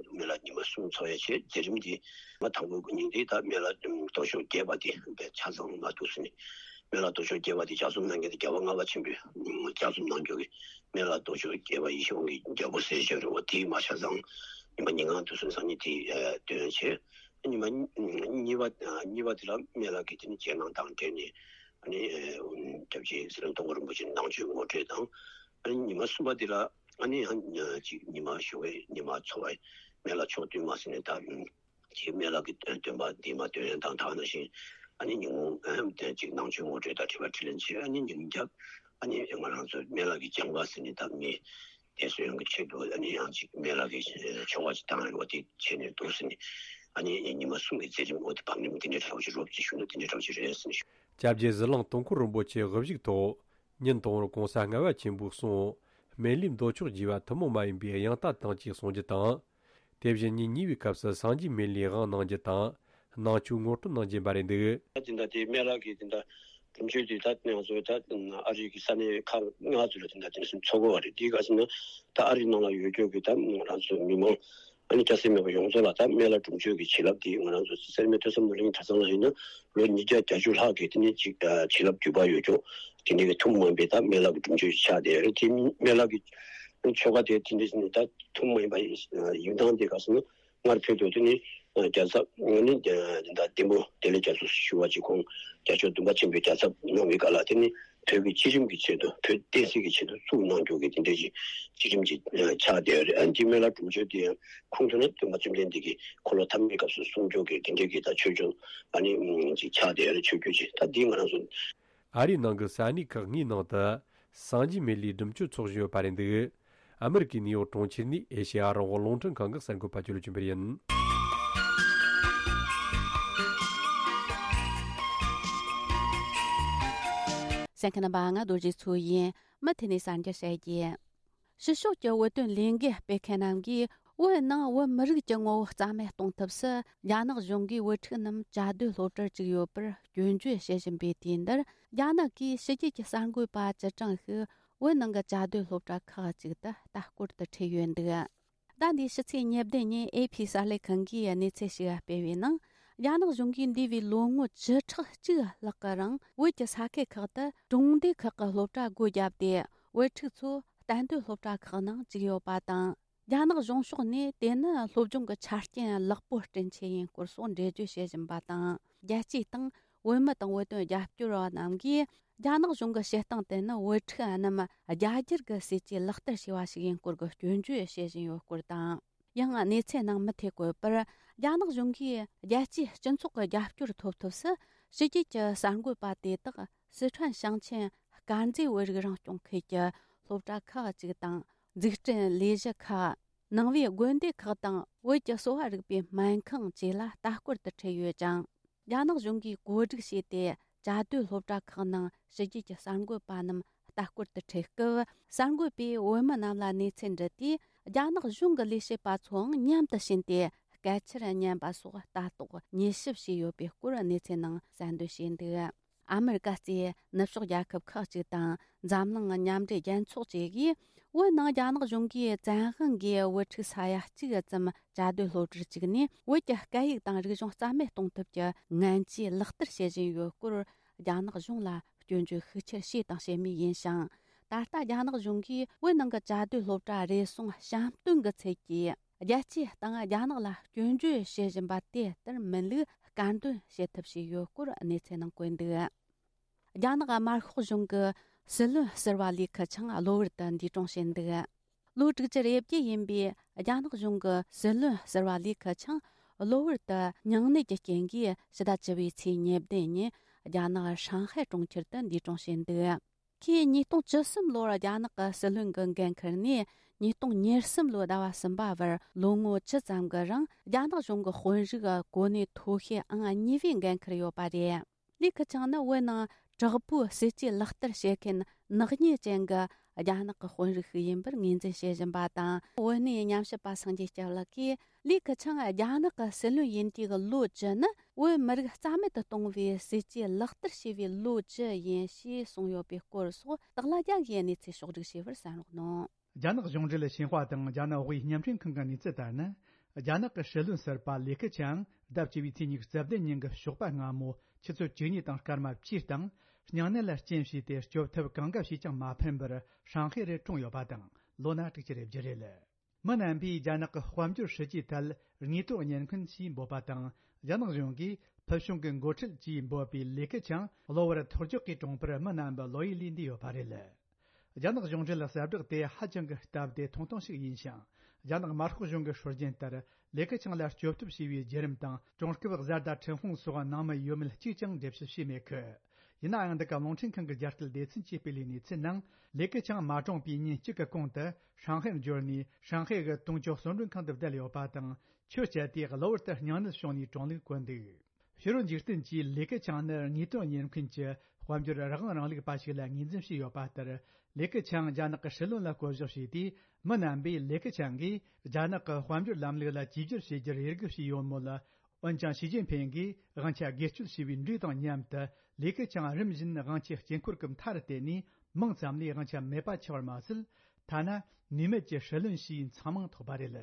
སྨན་བླ་ཉི་མ་གསུམ་ཚོགས་ཡ་བྱས། མཛད་རིམ་འདི་མ་དང་པོ་ཉིན་འདི་ད་སྨན་བླ་མདོ་ཕྱོགས་རྒྱས་པ་འདི་ཆ་ཚང་མ་འདུག་སེ་ནས་སྨན་བླ་མདོ་ཕྱོགས་རྒྱས་པ་འདི་ལྗགས་རྩོམ་གནང་མཁན་དེ་རྒྱལ་བ་ལྔ་པ་ཆེན་པོས་ལྗགས་རྩོམ་གནང་རྒྱུ་གི་སྨན་བླ་མདོ་ཕྱོགས་རྒྱས་པ་ཡེ་ཤེས་དབང་གི་རྒྱལ་པོ་ཟེར་བྱས་རེད་བ། དེའི་མ་ཆ་ཚང་ཉི་མ་ཉིན་གང་འདུག་སེ་སང་ཉིན་དེ་འདོན་བྱས། ཉི་མ་གཉིས་པ་གཉིས་པ་དེ་ལ་སྨན་བླ་གི་དེ་ནི་རྗེས་གནང་དང་འབྲེལ་ནས་ཨ་ནི་སྐྱབས་རྗེ་ཟི་ལིང་སྟོང་འཁོར་རིན་པོ་ཆེ་ནང་ཆོས་ངོ་སྤྲོད་དང་། ཨ་ནི་ཉི་མ་གསུམ་པ་དེ་ལ་ཨ་ནི་ཅིག་ཉི་མ་ཞོགས་པའི་ཉི་མ་འཚོ་བའི་སྨན་བླ་ཕྱོགས་བསྟུན་མ་ཟེར་ནས་ད་ཅིག་སྨན་བླ་གི་སྟོན་པ་འདི་མ་འདོན་ཡ་དང་དག་ནང་བཞིན་ཨ་ནི་ཉིན་གུང་ཅིག་ནང་ཆོས་ངོ་སྤྲོད་དང་དྲི་བ་དྲིས་ལན་བྱས། ཨ་ནི་ཉིན་རྒྱབ་ཨ་ནི་ང་རང་ཚོ་སྨན་བླ་གི་སྦྱང་བ་ཟེར་ནས་ད་མི་དེ་ཚོ་ཡོང་གི་ཆེད་དུ་ཨ་ནི་ཡང་ཅིག་སྨན་བླ་གི་ཆོ་ག་ཅིག་བཏང་ཡོད་པ་དེ་བྱས་ནས་འདུག་ཟེར་ནས་ཨ་ནི་ཉི་མ་གསུམ་གྱི་མཛད་རིམ་འོག་ཏུ་བང་རིམ་དེ་འདྲའི་འདྲ་བོ་ཞིག་རོབ་ཅིག་ཞུ་ན་དེ་འདྲའི་འདྲ་བོ་ཞིག་རེད་ཟེར་ནས་ཞུ། སྐྱབས་རྗེ་ཟི་ལིང་སྟོང་འཁོར་རིན་པོ་ཆེ་དབུ་བཞུགས་ཐོག་ཉིན་དང་པོར་གོང་ས་ལྔ་པ་ཆེན་པོའི་གསུང་། སྨན་བླའི་མདོ་ཕྱོགས་རྒྱས་པ་ཐུན་མོང་མ་ཡིན་པའི་དབྱངས་རྟ་དང་བཅས་གསུང་རྒྱུ་དང་། དེ་བཞིན་ཉིན་གཉིས་པའི་སྐབས་སུ་སངས་རྒྱས་སྨན་བླའི་དབང་གནང་རྒྱུ་དང་། ནང་ཆོས་ངོ་སྤྲོད་གནང་རྒྱུ་ཡིན་པ་རེད་འདུག་དེ་འདྲ་དེ་སྨན་བླ་གི་དེ་འདྲ་སྒྲུབ་མཆོད་དེ་ད་ང་ཚོ་ད་ཨ་རི་གི་ས་གནས་ཁག་ལྔ་ཚོ་ལ་དེ་འདྲ་དེ་འདྲ་ཚོགས་དགོས་པ་རེད། དེའི་སྐབས་སུ་ན་ད་ཨ་རི་ནང་ལ་ཡོད་རྒྱུ་གི་ད་ང་རང་ཚོ་མི་མང་ཨ་ནི་སྐྱ་སེར་མེད་པ་ཡོངས་རྫོགས་ལ་ད་སྨན་བླ་སྒྲུབ་མཆོད་ཀྱི་བྱིན་རླབས་དེ་ང་རང་ཚོ་སེར་སྨད་ཐོས་བསམ་སློབ་གླིང་གྲྭ་ཚང་ལ་ཡིན་ན་ལོ་ཉིས་བརྒྱ་བརྒྱད་ཅུ་ལྷག་གི་དེ་ནས་ཅིག་བྱིན་རླབས་བརྒྱུད་པ་ཡོད་ཀྱང་དེ་འདྲ་གི་ཐུན་མོང་མ་ཡིན་པའི་ད་སྨན་བླ་གི་སྒྲུབ་མཆོད་ཅིག་ཆགས་བསྡད་ཡོད་རེད། དེ་སྨན་བླ་གི་ཆོ་ག་དེ་དེ་འདྲ་ནི་ད་ཐུན་མོང་མ་ཡིན་པ་ཡིན་སྟངས་དེ་ག་ཟེར་ན་སྔར་བོད་དུ་དེ་ནི་རྒྱལ་ཚབ་ནི་ད་ལྡེ་མོ་བདེ་ལེགས་རྒྱ་མཚོ་ཞུ་བ་ཅིག་ཁོང་རྒྱལ་མཆོག་བདུན་པ་ཆེན་པོའི་རྒྱལ་ཚབ་གནང་བའི་སྐབས་ལ་དེ་ནི་བོད་ཀྱི་སྤྱི་རིམ་གྱི་ཆེད་དུ་བོད་བསྟན་སྲིད་ཀྱི་ཆེད་དུ་བཙུགས་གནང་རྒྱུ་གི་དེ་འདྲ་ཞིག་སྤྱི་རིམ་གྱི་ཆགས་བསྡད་ཡོད་རེད། ཨ་ནི་སྨན་བླ་སྒྲུབ་མཆོད་དེ་ཡང་ཁུངས་ཐུབ་ན་སྟོན་པ་བཅོམ་ལྡན་འདས་ཀྱིས་འཁོར་ལོ་ཐ་མའི་སྐབས་སུ་གསུང་རྒྱུ་གི་དེ་འདྲ་གི་ད་ཆོས་རྒྱུན་ཨ་ནི་ཅིག་ཆགས་བསྡད་ཡོད་རེད། ཆོས་བརྒྱུད་ཅིག་ད་འདི་ང་རང་ཚོ། ཨ་རིའི་ནང་གི་ས་གནས་ཁག་ལྔའི་ནང་དུ་སངས་རྒྱས་སྨན་བླའི་སྒྲུབ་མཆོད་འཚོགས་བཞིན་ཡོད་པ་རེད་འདུག་ཨ་མི་རི་ཀའི་ནིའུ་ཡོག་གྲོང་ཁྱེར་ནས་ཨེ་ཤེ་ཡ་རང་དབང་རླུང་འཕྲིན་ཁང་གི་གསར་འགོད་པ་ཇོ་ལུ་ཅུན་པར་ཡིན། གསན་མཁན་རྣམ་པ། ང་རྡོ་རྗེ་མཚོ་ཡིན། མུ་མཐུད་ནས་གསར་འགྱུར་བཤད་རྒྱུ། ཕྱི་ཕྱོགས་ཀྱི་བོད་དོན་ལས་འགུལ་སྤེལ་མཁན་རྣམས་ཀྱིས་བོད་ནང་བོད་མི་རིགས་ཀྱི་ངོ་བོ་རྩ་མེད་གཏོང་ཐབས་སུ་རྒྱ་ནག་གཞུང་གིས་བོད་ཕྲུག་རྣམས་བཅའ་སྡོད་སློབ་གྲྭར་བཅུག་ཡོད་པར་སྐྱོན་བརྗོད་བྱེད་བཞིན་པའི་དུས་འདིར། རྒྱ་ནག་གིས་ཕྱི་རྒྱལ་གྱི་གསར་འགོད་པ་བཅུ་གྲངས་ཤིག་བོད་ནང་གི་བཅའ་སྡོད་སློབ་གྲྭ་ཁག་ཅིག་ཏུ་ལྟ་སྐོར་དུ་ཁྲིད་ཡོད་འདུག་ཟླ་འདིའི་ཕྱི་ཚེས་ཉེར་བདུན་ཉིན་ཨེ་ཕི་གསར་ལས་ཁང་གིས་གནས་ཚུལ་ཞིག་སྤེལ་བའི་ནང་། རྒྱ་ནག་གཞུང་གིས་འདས་པའི་ལོ་ངོ་བཅུ་ཕྲག་གཅིག་ལྷག་གི་རིང་བོད་ཀྱི་ས་ཁུལ་ཁག་ཏུ་གྲོང་སྡེ་ཁག་གི་སློབ་གྲྭ་སྒོ་བརྒྱབ་སྟེ། བོད་ཕྲུག་ཚོ་གཏན་སྡོད་སློབ་གྲྭ་ཁག་ནང་བཅུག་ཡོད་པ་དང་། རྒྱ་ནག་གཞུང་ཕྱོགས་ནས་དེ་ནི་སློབ་སྦྱོང་གི་ཆ་རྐྱེན་ལེགས་པོ་སྐྲུན་ཆེད་ཡིན་སྐོར་སོགས་འགྲེལ་བརྗོད་བྱེད་བཞིན་པ་དང་། རྒྱལ་སྤྱིའི་སྟེང་བོད་མི་དང་བོད་དོན་རྒྱབ་སྐྱོར་བ་རྣམས་ཀྱིས། རྒྱ་ནག་གཞུང་གི་བྱེད་སྟངས་དེ་ནི་བོད་ཕྲུག་རྣམས་རྒྱ་སྒྱུར་གྱི་སྲིད་ཇུས་ལག་བསྟར་བྱས་པ་ཞིག་ཡིན་སྐོར་གྱི་སྐྱོན་བརྗོད་བྱེད་བཞིན་ཡོད་སྐོར་དང་། ཡང་གནས་ཚུལ་ནང་མུ་མཐུད་བཀོད་པར། རྒྱ་ནག་གཞུང་གིས་རྒྱལ་སྤྱིའི་སྤྱི་ཚོགས་ཀྱི་རྒྱབ་སྐྱོར་ཐོབ་ཐབས་སུ། ཕྱི་རྒྱལ་གྱི་གསར་འགོད་པ་དེ་དག་སི་ཁྲོན་ཞིང་ཆེན་དཀར་མཛེས་བོད་རིགས་རང་སྐྱོང་ཁུལ་གྱི་སློབ་གྲྭ་ཁག་ཅིག་དང་། འཛུགས་སྐྲུན་ལས་གཞི་ཁག་ནང་པའི་དགོན་སྡེ་ཁག་དང་། བོད་ཀྱི་གསོ་བ་རིག་པའི་སྨན་ཁང་བཅས་ལ་ལྟ་སྐོར་དུ་ཁྲིད་ཡོད་ཅིང་། རྒྱ་ནག་གཞུང་གིས་གོ་སྒྲིག་བྱས་ཏེ། བཅའ་སྡོད་སློབ་གྲྭ་ཁག་ནང་ཕྱི་རྒྱལ་གྱི་གསར་འགོད་པ་རྣམས་ལྟ་སྐོར་དུ་ཁྲིད་སྐབས། གསར་འགོད་པས་བོད་མི་རྣམས་ལ་གནས་ཚུལ་འདྲི་དུས། རྒྱ་ནག་གཞུང་གི་ལས་བྱེད་པ་ཚོའང་མཉམ་དུ་ཕྱིན་ཏེ། སྐད་ཆར་ཉན་པ་སོགས་ལྟ་རྟོག་ཉེས་ཞིབ་བྱས་ཡོད་པའི་སྐོར་གནས་ཚུལ་ནང་གསལ་འདོན་བྱས་འདུག་ཨ་མི་རི་ཀ་གཙོས་ནུབ་ཕྱོགས་རྒྱལ་ཁབ་ཁག་ཅིག་དང་། འཛམ་གླིང་མཉམ་འབྲེལ་རྒྱལ་ཚོགས་བཅས་ཀྱིས། བོད་ནང་རྒྱ་ནག་གཞུང་གིས་བཙན་དབང་གིས་བོད་ཕྲུག་ས་ཡ་གཅིག་ཙམ་བཅའ་སྡོད་སློབ་གྲྭར་བཅུག་ནས། བོད་ཀྱི་སྐད་ཡིག་དང་རིག་གཞུང་རྩ་མེད་གཏོང་ཐབས་ཀྱི་ངན་ཇུས་ལག་བསྟར་བྱེད་བཞིན་ཡོད་སྐོར། རྒྱ་ནག་གཞུང་ལ་སྐྱོན་བརྗོད་ཤུགས་ཆེར་བྱས་དང་བྱེད་མུས་ཡིན་ཞིང་། ད་ལྟ་རྒྱ་ནག་གཞུང་གིས་བོད་ནང་གི་བཅའ་སྡོད་སློབ་གྲྭ་རེ་ཟུང་བཤམས་སྟོན་གྱི་ཚུལ་གྱིས་རྒྱལ་སྤྱིའི་སྟེང་རྒྱ་ནག་ལ་སྐྱོན་བརྗོད་བྱེད་བཞིན་པ་དེ་ལྟར་མིན་ལུགས་དཀར་འདོན་བྱེད་ཐབས་བྱས་ཡོད་སྐོར་གནས་ཚུལ་ནང་བཀོད་འདུག་རྒྱ་ནག་དམར་ཤོག་གཞུང་གི་སྲིད་བློན་ཟུར་པ་ལི་ཁེ་ཆང་གློ་བུར་དུ་འདས་གྲོངས་ཕྱིན་འདུག་ལོ་དྲུག་ཅུ་རེ་བརྒྱད་ཡིན་པའི་རྒྱ་ནག་གཞུང་གི་སྲིད་བློན་ཟུར་པ་ལི་ཁེ་ཆང་གློ་བུར་དུ་སྙིང་ནད་ཀྱི་རྐྱེན་གྱིས་ཕྱི་ཟླ་བཅུ་པའི་ཚེས་ཉེར་བདུན་ཉིན་རྒྱ་ནག་ཧྲང་ཧའེ་གྲོང་ཁྱེར་དུ་འདས་གྲོངས་ཕྱིན་འདུག་ཁོས་ཉིས་སྟོང་བཅུ་གསུམ་ལོར་རྒྱ་ནག་གི་སྲིད་བློན་གྱི་འགན་འཁུར་ནས་ཉིས་སྟོང་ཉེར་གསུམ་ལོའི་ཟླ་བ་གསུམ་པ་བར་ལོ་ངོ་བཅུ་ཙམ་གྱི་རིང་རྒྱ་ནག་གཞུང་གི་དཔོན་རིགས་གོ་གནས་མཐོ་ཤོས་ཨང་གཉིས་པའི་འགན་འཁུར་ཡོད་པ་རེད། ལི་ཁེ་ཆང་ནི་བོད་ནང་དྲག་པོའི་སྲིད་ཇུས་ལག་བསྟར་བྱེད་མཁན་ནག་ཉེས་ཅན་གྱི་རྒྱ་ནག་གི་དཔོན་རིགས་ཤིག་ཡིན་པར་ངོས་འཛིན་བྱེད་བཞིན་པ་དང་། བོད་གནས་ཉམས་ཞིབ་པ་སངས་རྒྱས་སྐྱབས་ལགས་ཀྱིས། ལི་ཁེ་ཆང་རྒྱ་ནག་གི་སྲིད་བློན་ཡིན་དུས་ཀྱི་ལོ་བཅུ་ནི་བོད་མི་རིགས་རྩ་མེད་དུ་གཏོང་བའི་སྲིད་ཇུས་ལག་བསྟར་བྱས་པའི་ལོ་བཅུ་ཡིན་ཞེས་གསུངས་ཡོད་པའི་སྐོར་སོགས་དག་ལ་རྒྱ་གིས་གནས་ཚུལ་ཕྱོགས་བསྒྲིགས་བྱས་པར་གསན་རོགས་གནང་། རྒྱ་ནག་གཞུང་འབྲེལ་ཞིན་ཧྭ་དང་རྒྱ་ནག་དབུས་བརྙན་འཕྲིན་ཁང་གི་གནས་ཚུལ་ལྟར་ན། རྒྱ་ནག་གི་སྲིད་བློན་ཟུར་པ་ལི་ཁེ་ཆང་ཟླ་བཅུ་པའི་ཚེས་ཉི་ཤུ་རྩ་བདུན་ཉིན་གྱི་ཞོགས་པ་སྔ་མོ་ཆུ་ཚོད་བཅུ་གཉིས་དང་སྐར་མ་བཅུའི་སྟེང་། སྙིང་ནད་ལ་རྐྱེན་བྱས་ཏེ་སྐྱོབ་ཐབས་གང་འགའ་བྱས་ཀྱང་མ་ཕན་པར་ཧྲང་ཧའེ་རུ་གྲོངས་ཡོད་པ་དང་། ལོ་ན་དྲུག་ཅུ་རེ་བརྒྱད་རེད། མི་རྣམ་པས་རྒྱ་ནག་གི་དཔལ་འབྱོར་སྲིད་ཇུས་ཐད་དངོས་དོན་བརྙན་འཕྲིན་ཞེས་འབོད་པ་དང་། རྒྱ་ནག་གཞུང་གིས་ཕུལ་བྱུང་གི་འགོ་ཁྲིད་ཅེས་འབོད་པའི་ལི་ཁེ་ཆང་གློ་བུར་ཐོར་བཅོག་གིས་གྲོངས་པར་མི་རྣམ་པ་བློ་ཡིད་ལས་འདས་ཡོད་པ་རེད། རྒྱ་ནག་གཞུང་འབྲེལ་གསལ་བསྒྲགས་དེ་ཧ་ཅང་གི་སྟབས་བདེ་ཐུང་ཐུང་ཞིག་ཡིན་ཞིང་། རྒྱ་ནག་དམར་ཤོག་གཞུང་གི་སྲོལ་རྒྱུན་ལྟར་ལི་ཁེ་ཆང་ལ་སྐྱོབ་ཐབས་བྱས་པའི་བརྒྱུད་རིམ་དང་། གྲོང་སྐབས་བཟའ་ཟླ་ཁྲིན་ཧུང་སོགས་ནང་མི་ཡོད་མེད་གཅིག་ཀྱང་འགྲེལ་བཤད་བྱས་མེད་ཁུལ། ཡིན་ནའང་། འདི་ག་རླུང་འཕྲིན་ཁང་གི་རྒྱ་སྐད་སྡེ་ཚན་གྱིས་སྤེལ་བའི་གནས་ཚུལ་ནང་། ལི་ཁེ་ཆང་མ་གྲོངས་པའི་ཉིན་གཅིག་གི་གོང་དུ་ཧྲང་ཧའེར་འབྱོར་ནས། ཧྲང་ཧའེ་གི་ཏུང་ཅོ་གསོལ་མགྲོན་ཁང་དུ་བསྡད་ཡོད་པ་དང་། ཆུ་བཅད་དེ་གློ་བུར་དུ་སྙིང་ནད་བྱུང་ནས་གྲོངས་ལུགས་བཀོད་འདུག་ཕྱི་རོལ་འཇིག་རྟེན་གྱིས་ལི་ཁེ་ཆང་ནི་དངོས་དོན་བརྙན་འཕྲིན་གྱི་དཔལ་འབྱོར་རང་དབང་རིང་ལུགས་པ་ཞིག་ལ་ངོས་འཛིན་བྱས་ཡོད་པ་ལྟར། ལི་ཁེ་ཆང་རྒྱ་ནག་གི་སྲིད་བློན་ལ་བསྐོ་གཞག་བྱས་ཏེ། མི་རྣམ་པས་ལི་ཁེ་ཆང་གིས་རྒྱ་ནག་གི་དཔལ་འབྱོར་ལམ་ལུགས་ལ་བཅོས་བསྒྱུར་བྱེད་རྒྱུར་འོས་སྒུག་བྱས་ཡོད་མོད། འོན་ཀྱང་། ཞི་ཅིན་ཕིང་གིས་དབང་ཆ་སྒེར་གཅོད་བྱས་པའི་འགྲོས་དང་མཉམ་དུ། ལི་ཁེ་ཆང་རིམ་བཞིན་དབང་ཆའི་དཀྱིལ་འཁོར་གྱི་མཐའ་རུ་བསྡད་ནས། མིང་ཙམ་ལས་དབང་ཆ་མེད་པ་ཆགས་པར་མ་ཟད། ཐ་ན་ནུས་མེད་ཀྱི་སྲིད་བློན་ཞེས་མཚང་མིང་ཐོགས་པ་རེད།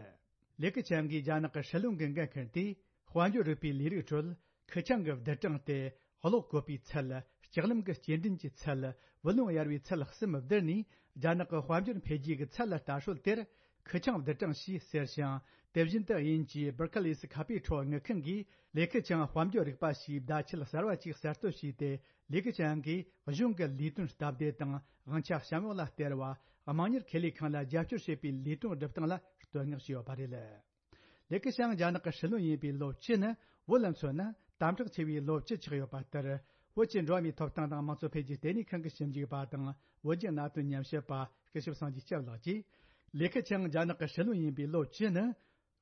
ལི་ཁེ་ཆང་གིས་རྒྱ་ནག་གི་སྲིད་བློན་གྱི་འགན་འཁུར་ཏེ། དཔལ་འབྱོར་རིག་པའི་ལས་རིགས་ཁྲོད། ཁེ་ཆང་གི་བསྡུར་གྲངས་ཏེ། གློག་བཀོད་པའི་ཚད། ལྕགས་ལམ་གྱི་སྐྱེལ་འདྲེན་གྱི་ཚད། བུ་ལོན་གཡར་བའི་ཚད་གསུམ་བསྡུར་ནས། རྒྱ་ནག་གི་དཔལ་འབྱོར་འཕེལ་རྒྱས་ཀྱི་ཚད་ལ་ལྟ་སྲོལ་དེར། ཁེ་ཆང་བསྡུར་གྲངས་ཞེས་ཟེར་ཞིང་། དེ་བཞིན་དུ་དབྱིན་ཇིའི་Barclays ཁ་པའི་ཁྲོད་དངུལ་ཁང་གིས། ལི་ཁེ་ཆང་དཔལ་འབྱོར་རིག་པ་ཞེས་བརྡ་ཆད་གསར་བ་ཅིག་གསར་གཏོད་བྱས་ཏེ། ལི་ཁེ་ཆང་གིས་གཞུང་གི་ལས་དོན་སྟབས་བདེ་དང་། དབང་ཆ་བཤམས་འོག་ལ་སྟེར་བ། དམངས་གཉེར་ཁེ་ལས་ཁང་ལ་རྒྱབ་སྐྱོར་བྱེད་པའི་ལས་དོན་སྒྲུབ་སྟངས་ལ་བསྟོད་བསྔགས་བྱས་ཡོད་པ་རེད། ལི་ཁེ་ཆང་རྒྱ་ནག་གི་སྲིད་བློན་ཡིན་པའི་ལོ་བཅུ་ནི། བོད་ལ་མཚོན་ན་དམ་དྲག་ཆེ་བའི་ལོ་བཅུ་ཆགས་ཡོད་པ་ལྟར། བོད་ཀྱི་འགྲོ་བ་མིའི་ཐོབ་ཐང་དང་དམངས་གཙོ་འཕེལ་རྒྱས་ལྟེ་གནས་ཁང་གི་ཞིབ་འཇུག་པ་དང་། བོད་ཀྱི་གནད་དོན་ཉམས་ཞིབ་པ་སྐུ་ཞབས་སངས་རྒྱས་སྐྱབས་ལགས་ཀྱིས། ལི་ཁེ་ཆང་རྒྱ་ནག་གི་སྲིད་བློན་ཡིན་པའི་ལོ་བཅུ་ནི།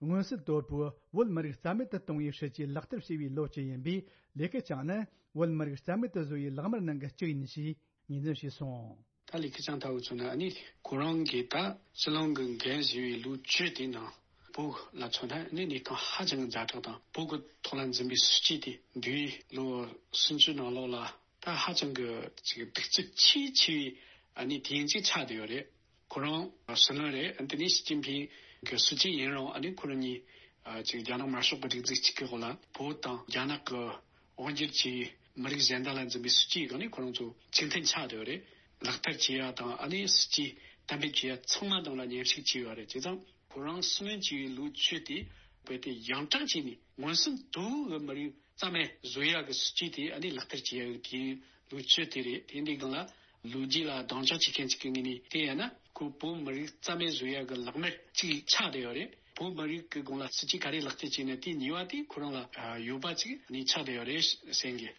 མངོན་གསལ་དོད་པོས་བོད་མི་རིགས་རྩ་མེད་དུ་གཏོང་བའི་སྲིད་ཇུས་ལག་བསྟར་བྱས་པའི་ལོ་བཅུ་ཡིན་པས། ལི་ཁེ་ཆང་ནི་བོད་མི་རིགས་རྩ་མེད་དུ་བཟོ་བའི་ལག་དམར་ནང་གི་གཅིག་ཡིན་ཞེས་ངོས་འཛིན་བྱས་སོང་། ད་ལི་ཁེ་ཆང་ལྟ་བུ་ཚོ་ནི་ཨ་ནི་ཁོ་རང་གིས་ད་སྲིད་བློན་གྱི་འགན་བཞེས་པའི་ལོ་བཅུ་དེའི་ནང་བོད་ལ་མཚོན་ན་ཨ་ནི་གནས་སྟངས་ཧ་ཅང་གི་ཛ་དྲག་དང་། བོད་ཀྱི་ཐོག་ལ་འཛིན་པའི་སྲིད་ཇུས་དེ་འདས་པའི་ལོ་སུམ་ཅུ་ནང་ལོགས་ལ་ད་ཧ་ཅང་གི་ཅིག་གདུག་རྩུབ་ཆེས་ཆེ་བའི་ཨ་ནི་དུས་ཡུན་ཅིག་ཆགས་བསྡད་ཡོད་རེད། ཁོ་རང་སྲིད་བློན་རེད། ཨ་ནི་དེ་ནས་ཞི་ཅིན་ཕིང་གི་སྲིད་ཇུས་ཡིན་རུང་། ཨ་ནི་ཁོ་རང་གཉིས་ཨ་ཅིག་རྒྱ་ནག་དམར་ཤོག་གི་སྒྲིག་འཛུགས་གཅིག་གི་འོག་ལ་བོད་དང་རྒྱ་ནག་གི་དབང་སྒྱུར་གྱི་མི་རིགས་གཞན་དག་ལ་འཛིན་པའི་སྲིད་ཇུས་སྒང་ནས་ཁོ་རང་ཚོ་གཅིག་མཐུན་ཆགས་བསྡད་ཡོད་རེད། ལག་བསྟར་བྱེད་ཡ་དང་། ཨ་ནི་སྲིད་ཇུས་གཏན་འབེབས་བྱེད་ཡ་ཚང་མ་སྒང་ལ་མཉམ་ཞུགས་བྱས་ཡོད་རེད། བྱས་ཙང་ཁོ་རང་སྲིད་བློན་བྱས་པའི་ལོ་བཅུ་དེ་རྦད་དེ་ཡང་དྲག་བྱས་ནས་མངོན་སུམ་དུ་བོད་མི་རིགས་རྩ་མེད་བཟོ་ཡ་གི་སྲིད་ཇུས་དེ་ཨ་ནི་ལག་བསྟར་བྱེད་ཡ་གི་དུས་ཡུན་ལོ་བཅུ་དེ་རེད། དེ་འདི་སྒང་ལ་ལོ་རྒྱུས་ལ་སྡིངས་ཆ་བྱེད་མཁན་ཅིག་གི་ངོས་ནས་བལྟས་ཡ་ན། ཁོ་བོད་མི་རིགས་རྩ་མེད་བཟོ་ཡ་གི་ལག་དམར་ཅིག་ཆགས་བསྡད་ཡོད་རེད། བོད་མི་རིགས་ཀྱི་སྒང་ལ་སྲིད་ཇུས་ག་རེ་ལག་བསྟར་བྱས་ན་དེ་ཉེས་པ་དེ་ཁོ་རང་ལ་ཡོད་པ་ཅིག་ནི་ཆགས་བསྡད་ཡོད་རེད་བསམ་གི།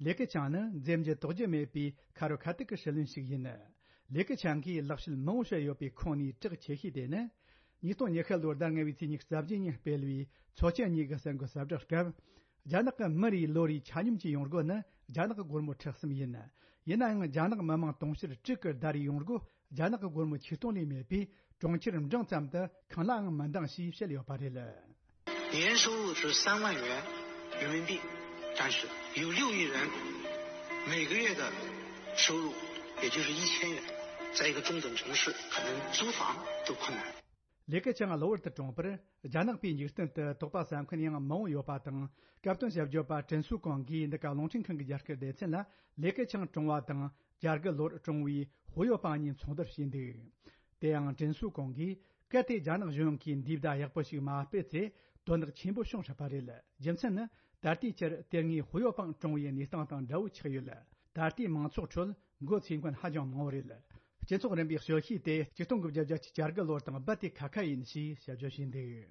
ལི་ཁེ་ཆང་ནི་འཛེམ་རྒྱུ་དོགས་རྒྱུ་མེད་པའི་ཁ་རོ་ཁ་ཐུག་གི་སྲིད་བློན་ཞིག་ཡིན། ལི་ཁེ་ཆང་གིས་ལེགས་བཤད་མང་བོ་བཤད་ཡོད་པའི་ཁོངས་ནས་གྲགས་ཆེ་ཤོས་དེ་ནི། ཉིས་སྟོང་ཉི་ཤུ་ལོར་ཟླ་ལྔ་པའི་ཚེས་ཉི་ཤུ་རྩ་བརྒྱད་ཉིན་སྤེལ་བའི་མཚོ་ཆེན་གཉིས་ཀྱི་གསར་འགོད་གསལ་བསྒྲགས་སྐབས། རྒྱ་ནག་གི་མི་རེའི་ལོ་རེའི་ཆ་སྙོམས་ཀྱི་ཡོང་སྒོ་ནི་རྒྱ་ནག་གི་སྒོར་མོ་ཁྲི་གསུམ་ཡིན། ཡིན་ནའང་རྒྱ་ནག་མི་དམངས་དུང་ཕྱུར་དྲུག་གི་ཟླ་རེའི་ཡོང་སྒོ་རྒྱ་ནག་གི་སྒོར་མོ་ཆིག་སྟོང་ལས་མེད་པས། གྲོང་ཁྱེར་འབྲིང་ཙམ་དུ་གང་ལའང་མི་འདང་ཞེས་བཤད་ཡོད་པ་རེད། 年收入是三万元人民币，但是有六亿人每个月的收入也就是一千元，在一个中等城市，可能租房都困难。ལི་ཁེ་ཆང་གློ་བུར་དུ་གྲོངས་པར། རྒྱ་ནག་པའི་འཇིག་རྟེན་དུ་དོགས་པ་ཟ་མཁན་ཡང་མང་བོ་ཡོད་པ་དང་། སྐབས་དོན་ཞིབ་བརྗོད་པ་ཀྲིན་སུའུ་ཀོང་གིས་འདི་ག་རླུང་འཕྲིན་ཁང་གི་རྒྱ་སྐད་སྡེ་ཚན་ལ། ལི་ཁེ་ཆང་གྲོངས་པ་དང་། བྱ་རྒོད་གློ་བུར་གྲོངས་པའི་ཧུའུ་ཡོ་པང་གཉིས་མཚུངས་བསྡུར་བྱས་འདུག་དེ་ཡང་ཀྲིན་སུའུ་ཀོང་གིས། གལ་ཏེ་རྒྱ་ནག་གཞུང་གིས་འདིའི་བརྡ་ཡག་པོ་ཞིག་མ་སྤེལ་ཚེ། དོན་དག་ཆེན་པོ་བྱུང་སྲིད་པ་རེད། རྒྱུ་མཚན་ནི། ད་ལྟའི་ཆར་དེ་སྔའི་ཧུའུ་ཡོ་པང་གྲོངས་པའི་གནས་སྟངས་དང་འདྲ་བོ་ཆགས་ཡོད། ད་ལྟའི་མང་ཚོགས་ཁྲོད་མགོ་ཚོས་མཁན་ཧ་ཅང་མང་བོ་རེད། སྤྱི་ཚོགས་རིམ་པའི་དཔྱོད་ཤེས་དེ་ཆིག་སྟོང་དགུ་བརྒྱ་བརྒྱད་ཅུ་གྱ་དགུ་ལོར་དང་རྦད་དེ་ཁ་ཁ་ཡིན་ཞེས་ཞིབ་བརྗོད་བྱས་འདུག་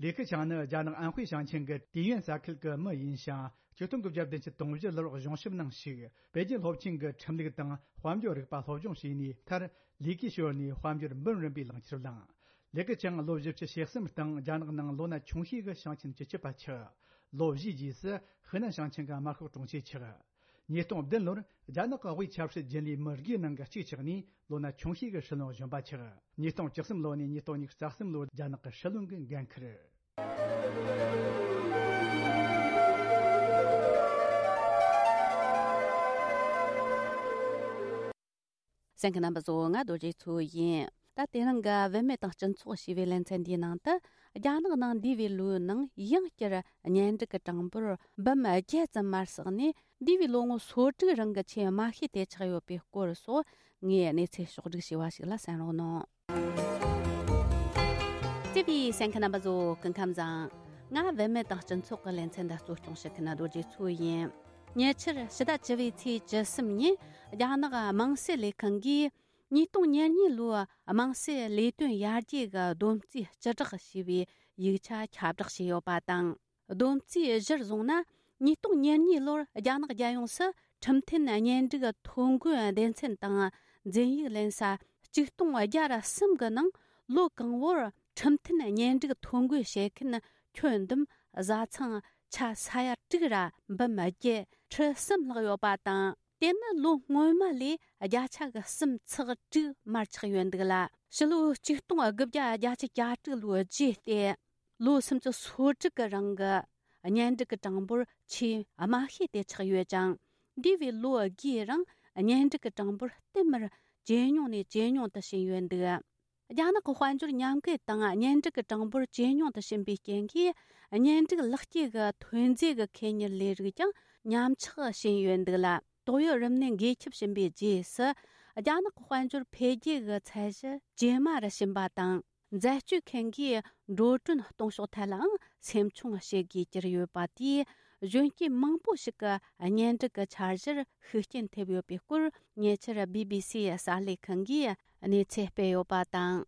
ལི་ཁེ་ཆང་ནི་རྒྱ་ནག་ཨན་ཧུའེ་ཞིང་ཆེན་གྱི་ཏེ་ཡོན་ས་ཁུལ་གྱི་མི་ཡིན་ཞིང་། ཆིག་སྟོང་དགུ་བརྒྱ་བདུན་ཅུ་དོན་བཞི་ལོར་གཞུང་ཞབས་ནང་ཞུགས། པེ་ཅིན་སློབ་ཆེན་གྱི་ཁྲིམས་ལུགས་དང་དཔལ་འབྱོར་རིག་པ་སློབ་སྦྱོང་བྱས་ནས། མཐར་ལས་ཀའི་ཞོར་ནས་དཔལ་འབྱོར་འབུམ་རམས་པའི་ལག་ཁྱེར་བླངས། ལི་ཁེ་ཆང་ལོ་བཞི་བཅུ་ཞེ་གསུམ་སྟེང་རྒྱ་ནག་ནང་ལོ་ན་ཆུང་ཤོས་ཀྱི་ཞིང་ཆེན་སྤྱི་ཁྱབ་པ་ཆགས། ལོ་བཞིའི་རྗེས་སུ་ཧི་ནན་ཞིང་ཆེན་གྱི་དམར་ཤོག་དྲུང་ཆེ་ཆགས། ཉིས་སྟོང་བདུན་ལོར་རྒྱ་ནག་གི་དབུས་ཆབ་སྲིད་རྒྱུན་ལས་མི་དགུའི་ནང་གི་གཅིག་ཆགས་ནས། ལོ་ན་ཆུང་ཤོས་ཀྱི་སྲིད་བློན་གཞོན་པ་ཆགས། ཉིས་སྟོང་བཅུ་གསུམ་ལོ་ནས་ཉིས་སྟོང་ཉི་ཤུ་རྩ་གསུམ་ལོར་རྒྱ་ནག་གི་སྲིད་བློན་གྱི་འགན་འཁུར། གསན་མཁན་རྣམ་པ་ཚོ། ང་རྡོ་རྗེ་མཚོ་ཡིན། ད་དེ་རིང་གི་བུད་མེད་དང་སྤྱི་ཚོགས་ཞེས་པའི་ལེ་ཚན་འདིའི་ནང་དུ། རྒྱ་ནག་ནང་འདས་པའི་ལོའི་ནང་ཡང་བསྐྱར་གཉེན་སྒྲིག་གི་གྲངས་འབོར་འབུམ་བརྒྱད་ཙམ་མར་ཟགས་ནས། འདས་པའི་ལོ་ངོ་སོ་དྲུག་རིང་གི་ཆེས་དམའ་ཤོས་དེ་ཆགས་ཡོད་པའི་སྐོར་སོགས། ངས་གནས་ཚུལ་ཕྱོགས་བསྒྲིགས་བྱས་པ་ཞིག་ལ་གསན་རོགས་གནང་། བརྩེ་བའི་གསན་མཁན་རྣམ་པ་ཚོ། སྐུ་ཁམས་བཟང་། ང་བུད་མེད་དང་སྤྱི་ཚོགས་ཀྱི་ལེ་ཚན་འདི་གཙོ་སྐྱོང་བྱེད་མཁན་རྡོ་རྗེ་མཚོ་ཡིན། ཉེ་ཆར་ཕྱི་ཟླ་བཅུ་པའི་ཚེས་བཅུ་གསུམ་ཉིན། རྒྱ་ནག་དམངས་སྲིད་ལས་ཁང་གིས་ཉིས་སྟོང་ཉེར་གཉིས་ལོའི་དམངས་སྲིད་ལས་དོན་ཡར་རྒྱས་ཀྱི་བསྡོམས་རྩིས་སྤྱི་བསྒྲགས་ཞེས་པའི་ཡིག་ཆ་ཁྱབ་བསྒྲགས་བྱས་ཡོད་པ་དང་། བསྡོམས་རྩིས་གཞིར་བཟུང་ན། ཉིས་སྟོང་ཉེར་གཉིས་ལོར་རྒྱ་ནག་རྒྱལ་ཡོངས་སུ་ཁྲིམས་མཐུན་གཉེན་སྒྲིག་ཐོ་འགོད་སྡེ་ཚན་དང་འཛིན་ཡིག་ལེན་ས་ཆིག་སྟོང་བརྒྱ་ར་གསུམ་གྱི་ནང་། ལོ་གང་བོར་ཁྲིམས་མཐུན་གཉེན་སྒྲིག་ཐོ་འགོད་བྱེད་མཁན་ཁྱོན་བསྡོམས་བཟའ་ཚང་ཆ་ས་ཡ་དྲུག་ར་འབུམ་བརྒྱད་ཁྲི་གསུམ་ལྷག་ཡོད་པ་དང་། དེ་ནི་ལོ་སྔོན་མ་ལས་བརྒྱ་ཆ་གི་གསུམ་ཚེག་དྲུག་མར་ཆག་ཡོད་འདུག་ལ། ཕྱི་ལོ་ཆིག་སྟོང་དགུ་བརྒྱ་བརྒྱད་ཅུ་གྱ་དྲུག་ལོའི་རྗེས་ཏེ། ལོ་སུམ་ཅུ་སོ་དྲུག་གི་རིང་གི་གཉེན་སྒྲིག་གི་གྲངས་འབོར་ཆེས་དམའ་ཤོས་དེ་ཆགས་ཡོད་ཅིང་། འདས་པའི་ལོ་དགུའི་རིང་གཉེན་སྒྲིག་གི་གྲངས་འབོར་བསྟུད་མར་ཇེ་ཉུང་ནས་ཇེ་ཉུང་དུ་ཕྱིན་ཡོད་འདུག་རྒྱ་ནག་གི་དཔལ་འབྱོར་ཉམས་རྒུད་དང་གཉེན་སྒྲིག་གི་གྲངས་འབོར་ཇེ་ཉུང་དུ་ཕྱིན་པའི་རྐྱེན་གྱིས། གཉེན་སྒྲིག་ལག་སྐྱེས་ཀྱི་ཐོན་རྫས་ཀྱི་ཁེ་གཉེར་ལས་རིགས་ཀྱང་ཉམས་ཆག་ཕྱིན་ཡོད་འདུག་ལ། ཏོག་དབྱིབས་རིམས་ནད་འགོས་ཁྱབ་ཕྱིན་པའི་རྗེས་སུ། རྒྱ་ནག་གི་དཔལ་འབྱོར་འཕེལ་རྒྱས་ཀྱི་ཚད་གཞི་ཇེ་དམའ་རུ་ཕྱིན་པ་དང་། འཛད་སྤྱོད་མཁན་གྱིས་འགྲོ་གྲོན་གཏོང་ཕྱོགས་ཐད་ལའང་སེམས་ཆུང་བྱེད་དགོས་གྱུར་ཡོད་པ་དེས། གཞོན་སྐྱེས་མང་པོ་ཞིག་གི་གཉེན་སྒྲིག་གི་འཆར་གཞིར་ཤུགས་རྐྱེན་ཐེབས་ཡོད་པའི་སྐོར། ཉེ་ཆར་བི་བི་སི་གསར་ལས་ཁང་གིས་གནས་ཚུལ་སྤེལ་ཡོད་པ་དང་།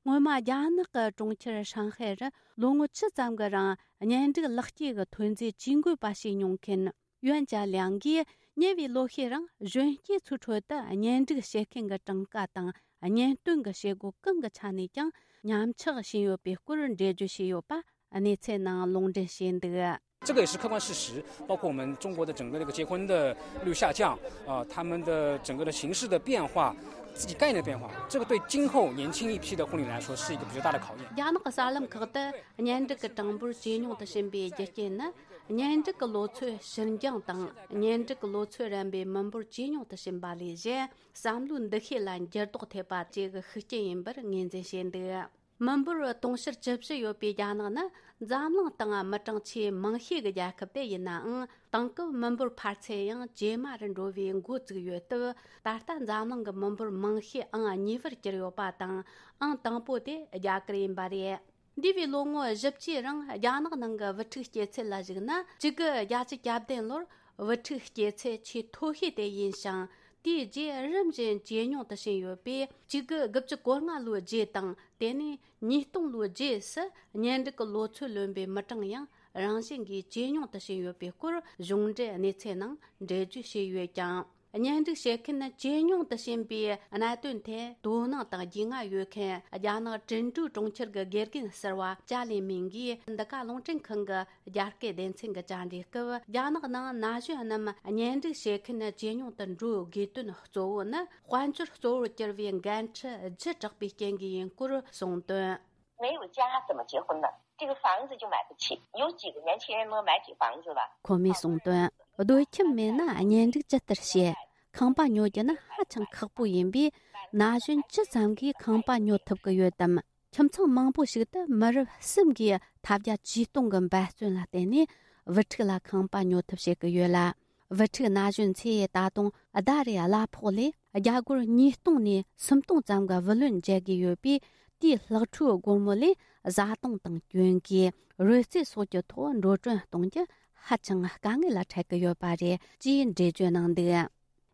སྔོན་མ་རྒྱ་ནག་གི་གྲོང་ཁྱེར་ཧྲང་ཧའེ་རུ་ལོ་ངོ་བཅུ་ཙམ་གྱི་རིང་གཉེན་སྒྲིག་ལག་སྐྱེས་ཀྱི་ཐོན་རྫས་ཇུས་འགོད་པ་ཞིག་མྱོང་མཁན་ཡོན་ཅཱ་ལིའང་གིས། ཉེ་བའི་ལོ་ཤས་རིང་གཞོན་སྐྱེས་ཚོའི་ཁྲོད་དུ་གཉེན་སྒྲིག་བྱེད་མཁན་གྱི་གྲངས་ཀ་དང་། གཉེན་སྟོན་གྱི་བྱེད་སྒོ་གང་གི་ཆ་ནས་ཀྱང་ཉམས་ཆག་ཕྱིན་ཡོད་པའི་སྐོར་འགྲེལ་བརྗོད་བྱས་ཡོད་པ་གནས་ཚུལ་ནང་ལུང་འདྲེན་བྱས་འདུག 这个也是客观事实，包括我们中国的整个这个结婚的率下降，啊，他们的整个的形式的变化，自己概念的变化，这个对今后年轻一批的婚礼来说是一个比较大的考验。རྒྱ་ནག་གི་གསར་ལམ་ཁག་ཏུ་གཉེན་སྒྲིག་གི་གྲངས་འབོར་ཇེ་ཉུང་དུ་ཕྱིན་པའི་རྒྱུ་རྐྱེན་ནི། གཉེན་སྒྲིག་གི་ལོ་ཚོད་ཕྱིར་འགྱང་དང་། གཉེན་སྒྲིག་གི་ལོ་ཚོད་རན་པའི་མི་འབོར་ཇེ་ཉུང་དུ་ཕྱིན་པ་ལས་གཞན། བསམ་བློའི་འདུ་ཤེས་ལ་འགྱུར་ལྡོག་ཐེབས་པ་བཅས་ཀྱི་ཤུགས་རྐྱེན་ཡིན་པར་ངོས་འཛིན་བྱས་འདུག་མི་འབོར་དུང་ཕྱུར་བཅུ་བཞི་ཡོད་པའི་རྒྱ་ནག་ནི་འཛམ་གླིང་སྟེང་མི་གྲངས་ཆེས་མང་ཤོས་ཀྱི་རྒྱལ་ཁབ་དེ་ཡིན་ནའང་། དེང་སྐབས་མི་འབོར་འཕར་ཚད་ཡང་ཇེ་དམའ་རུ་འགྲོ་བའི་འགོ་བཙུགས་ཡོད་སྟབས། ད་ལྟ་འཛམ་གླིང་གི་མི་འབོར་མང་ཤོས་ཨང་གཉིས་པར་གྱུར་ཡོད་པ་དང་། ཨང་དང་པོ་དེ་རྒྱ་གར་ཡིན་པ་རེད། འདས་པའི་ལོ་ངོ་བཞི་བཅུའི་རིང་རྒྱ་ནག་ནང་གི་བུ་ཕྲུག་སྐྱེ་ཚད་ལ་གཞིགས་ན། གཅིག་དགུ་བརྒྱད་ཅུ་གྱ་བདུན་ལོར་བུ་ཕྲུག་སྐྱེ་ཚད་ཆེས་མཐོ་ཤོས་དེ་ཡིན་ཞིང་། དེའི་རྗེས་རིམ་བཞིན་ཇེ་ཉུང་དུ་ཕྱིན་ཡོད་པས། གཅིག་དགུ་དགུ་བཅུ་གོ་ལྔ་ལོའི་རྗེས་དང་། དེ་ནས་ཉིས་སྟོང་ལོའི་རྗེས་སུ་གཉེན་སྒྲིག་གི་ལོ་ཚོད་ལོན་པའི་མི་གྲངས་ཡང་རང་བཞིན་གྱིས་ཇེ་ཉུང་དུ་ཕྱིན་ཡོད་པའི་སྐོར་གཞུང་འབྲེལ་གནས་ཚུལ་ནང་འགྲེལ་བརྗོད་བྱས་ཡོད་ཀྱང་། གཉེན་སྒྲིག་བྱེད་མཁན་ཇེ་ཉུང་དུ་ཕྱིན་པའི་གནད་དོན་ཐད་དོ་སྣང་དང་རྒྱུས་མངའ་ཡོད་མཁན་རྒྱ་ནག་ཀྲིན་ཀྲུའུ་གྲོང་ཁྱེར་གྱི་དགེ་རྒན་ཟུར་པ་ཅཱ་ལི་མིང་གིས། འདི་ག་རླུང་འཕྲིན་ཁང་གི་རྒྱ་སྐད་སྡེ་ཚན་གྱི་བཅར་འདྲིའི་སྐབས། རྒྱ་ནག་ནང་ན་གཞོན་རྣམས་གཉེན་སྒྲིག་བྱེད་མཁན་ཇེ་ཉུང་དུ་འགྲོ་དགོས་དོན་གཙོ་བོ་ནི། དཔལ་འབྱོར་གཙོ་བོར་གྱུར་བའི་འགན་འཁྲི་ལྗིད་དྲགས་པའི་རྐྱེན་གྱིས་ཡིན་སྐོར་གསུངས་དོན། 没有家怎么结婚呢？这个房子就买不起，有几个年轻人能买起房子吧？ཁོ་མོས་གསུངས་དོན། སྡོད་ཁྱིམ་མེད་ན་གཉེན་སྒྲིག་ཇི་ལྟར་བྱེད། ཁང་པ་ཉོ་རྒྱུ་ནི་ཧ་ཅང་ཁག་པོ་ཡིན་པས། ན་གཞོན་ཇི་ཙམ་གྱིས་ཁང་པ་ཉོ་ཐུབ་ཀྱི་ཡོད་དམ། ཁྱིམ་ཚང་མང་པོ་ཞིག་ཏུ་མི་རབས་གསུམ་གྱིས་ཐབས་བརྒྱ་ཇུས་སྟོང་གི་འབད་བརྩོན་ལ་བརྟེན་ནས་བུ་ཕྲུག་ལ་ཁང་པ་ཉོ་ཐབས་བྱེད་ཀྱི་ཡོད་ལ། བུ་ཕྲུག་ན་གཞོན་ཚོས་ད་དུང་ཟླ་རེའི་གླ་ཕོགས་ལས་རྒྱ་སྒོར་ཉིས་སྟོང་ནས་སུམ་སྟོང་ཙམ་གྱི་བུ་ལོན་འཇལ་དགོས་ཡོད་པས། དེའི་ལྷག་འཕྲོའི་སྒོར་མོ་ལས་བཟའ་བཏུང་དང་གྱོན་གོས། རོལ་རྩེད་སོགས་ཀྱི་ཐོག་འགྲོ་གྲོན་གཏོང་རྒྱུ་ཧ་ཅང་དཀའ་ངལ་ལ་འཕྲད་ཀྱི་ཡོད་པ་རེད་ཅེས་འགྲེལ་བརྗོད་གནང་འདུག།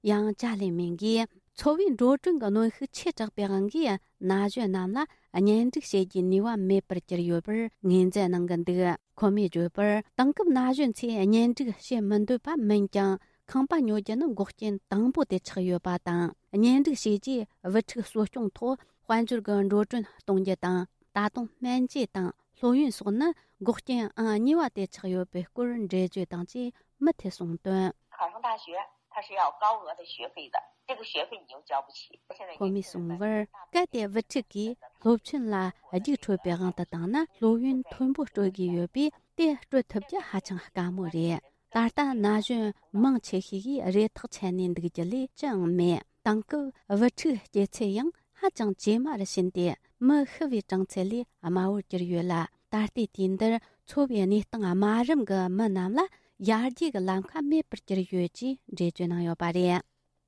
ཡང་ཅཱ་ལི་མིང་གིས། འཚོ་བའི་འགྲོ་གྲོན་གྱི་གནོན་ཤུགས་ཆེ་དྲགས་པའི་དབང་གིས། ན་གཞོན་རྣམས་ལ་གཉེན་སྒྲིག་བྱེད་རྒྱུའི་ནུས་པ་མེད་པར་གྱུར་ཡོད་པར་ངོས་འཛིན་གནང་གི་འདུག། ཁོ་མོས་བརྗོད་པར། དེང་སྐབས་ན་གཞོན་ཚོས་གཉེན་སྒྲིག་བྱེད་མི་འདོད་པ་མིན་ཀྱང་། ཁང་པ་ཉོ་རྒྱུ་ནི་འགོག་རྐྱེན་དང་པོ་དེ་ཆགས་ཡོད་པ་དང་། གཉེན་སྒྲིག་བྱས་རྗེས་བུ་ཕྲུག་གསོ་སྐྱོང་ཐོག་དཔལ་འབྱོར་གྱི་འགྲོ་གྲོན་གཏོང་རྒྱུ་དང་། ད་དུང་སྨན་བཅོས་དང་སློབ་ཡོན་སོགས་ནི་འགོག་རྐྱེན་ཨང་གཉིས་པ་དེ་ཆགས་ཡོད་པའི་སྐོར་འགྲེལ་བརྗོད་དང་བཅས་མུ་མཐུད་གསུངས་དོན། 考上大学，它是要高额的学费的，这个学费你又交不起。现在 ཁོ་མོས་གསུངས་པར། གལ་ཏེ་བུ་ཕྲུག་གིས་སློབ་ཆེན་ལ་རྒྱུགས་འཕྲོད་པའི་དབང་དུ་བཏང་ན། སློབ་ཡོན་མཐོན་པོ་སྤྲོད་དགོས་ཡོད་པས། དེ་སྤྲོད་ཐུབ་རྒྱུ་ཧ་ཅང་དཀའ་མོ་རེད། ད་ལྟ་ན་གཞོན་མང་ཆེ་ཤོས་ཀྱིས་རེ་ཐག་ཆད་ནས་འདུག་རྒྱུ་ལས་ཅི་ཡང་མེད། དེང་སྐབས་བུ་ཕྲུག་སྐྱེ་ཚད་ཡང་ཧ་ཅང་ཇེ་དམའ་རུ་ཕྱིན་ཏེ། མི་ཤི་བའི་གྲངས་ཚད་ལས་དམའ་བོར་གྱུར་ཡོད་ལ། ད་ལྟའི་དུས་འདིར་འཚོ་བའི་གནས་སྟངས་དམའ་རིམ་གྱི་མི་རྣམས་ལ་ཡར་རྒྱས་ཀྱི་ལམ་ཁ་མེད་པར་གྱུར་ཡོད་ཅེས་འགྲེལ་བརྗོད་གནང་ཡོད་པ་རེད།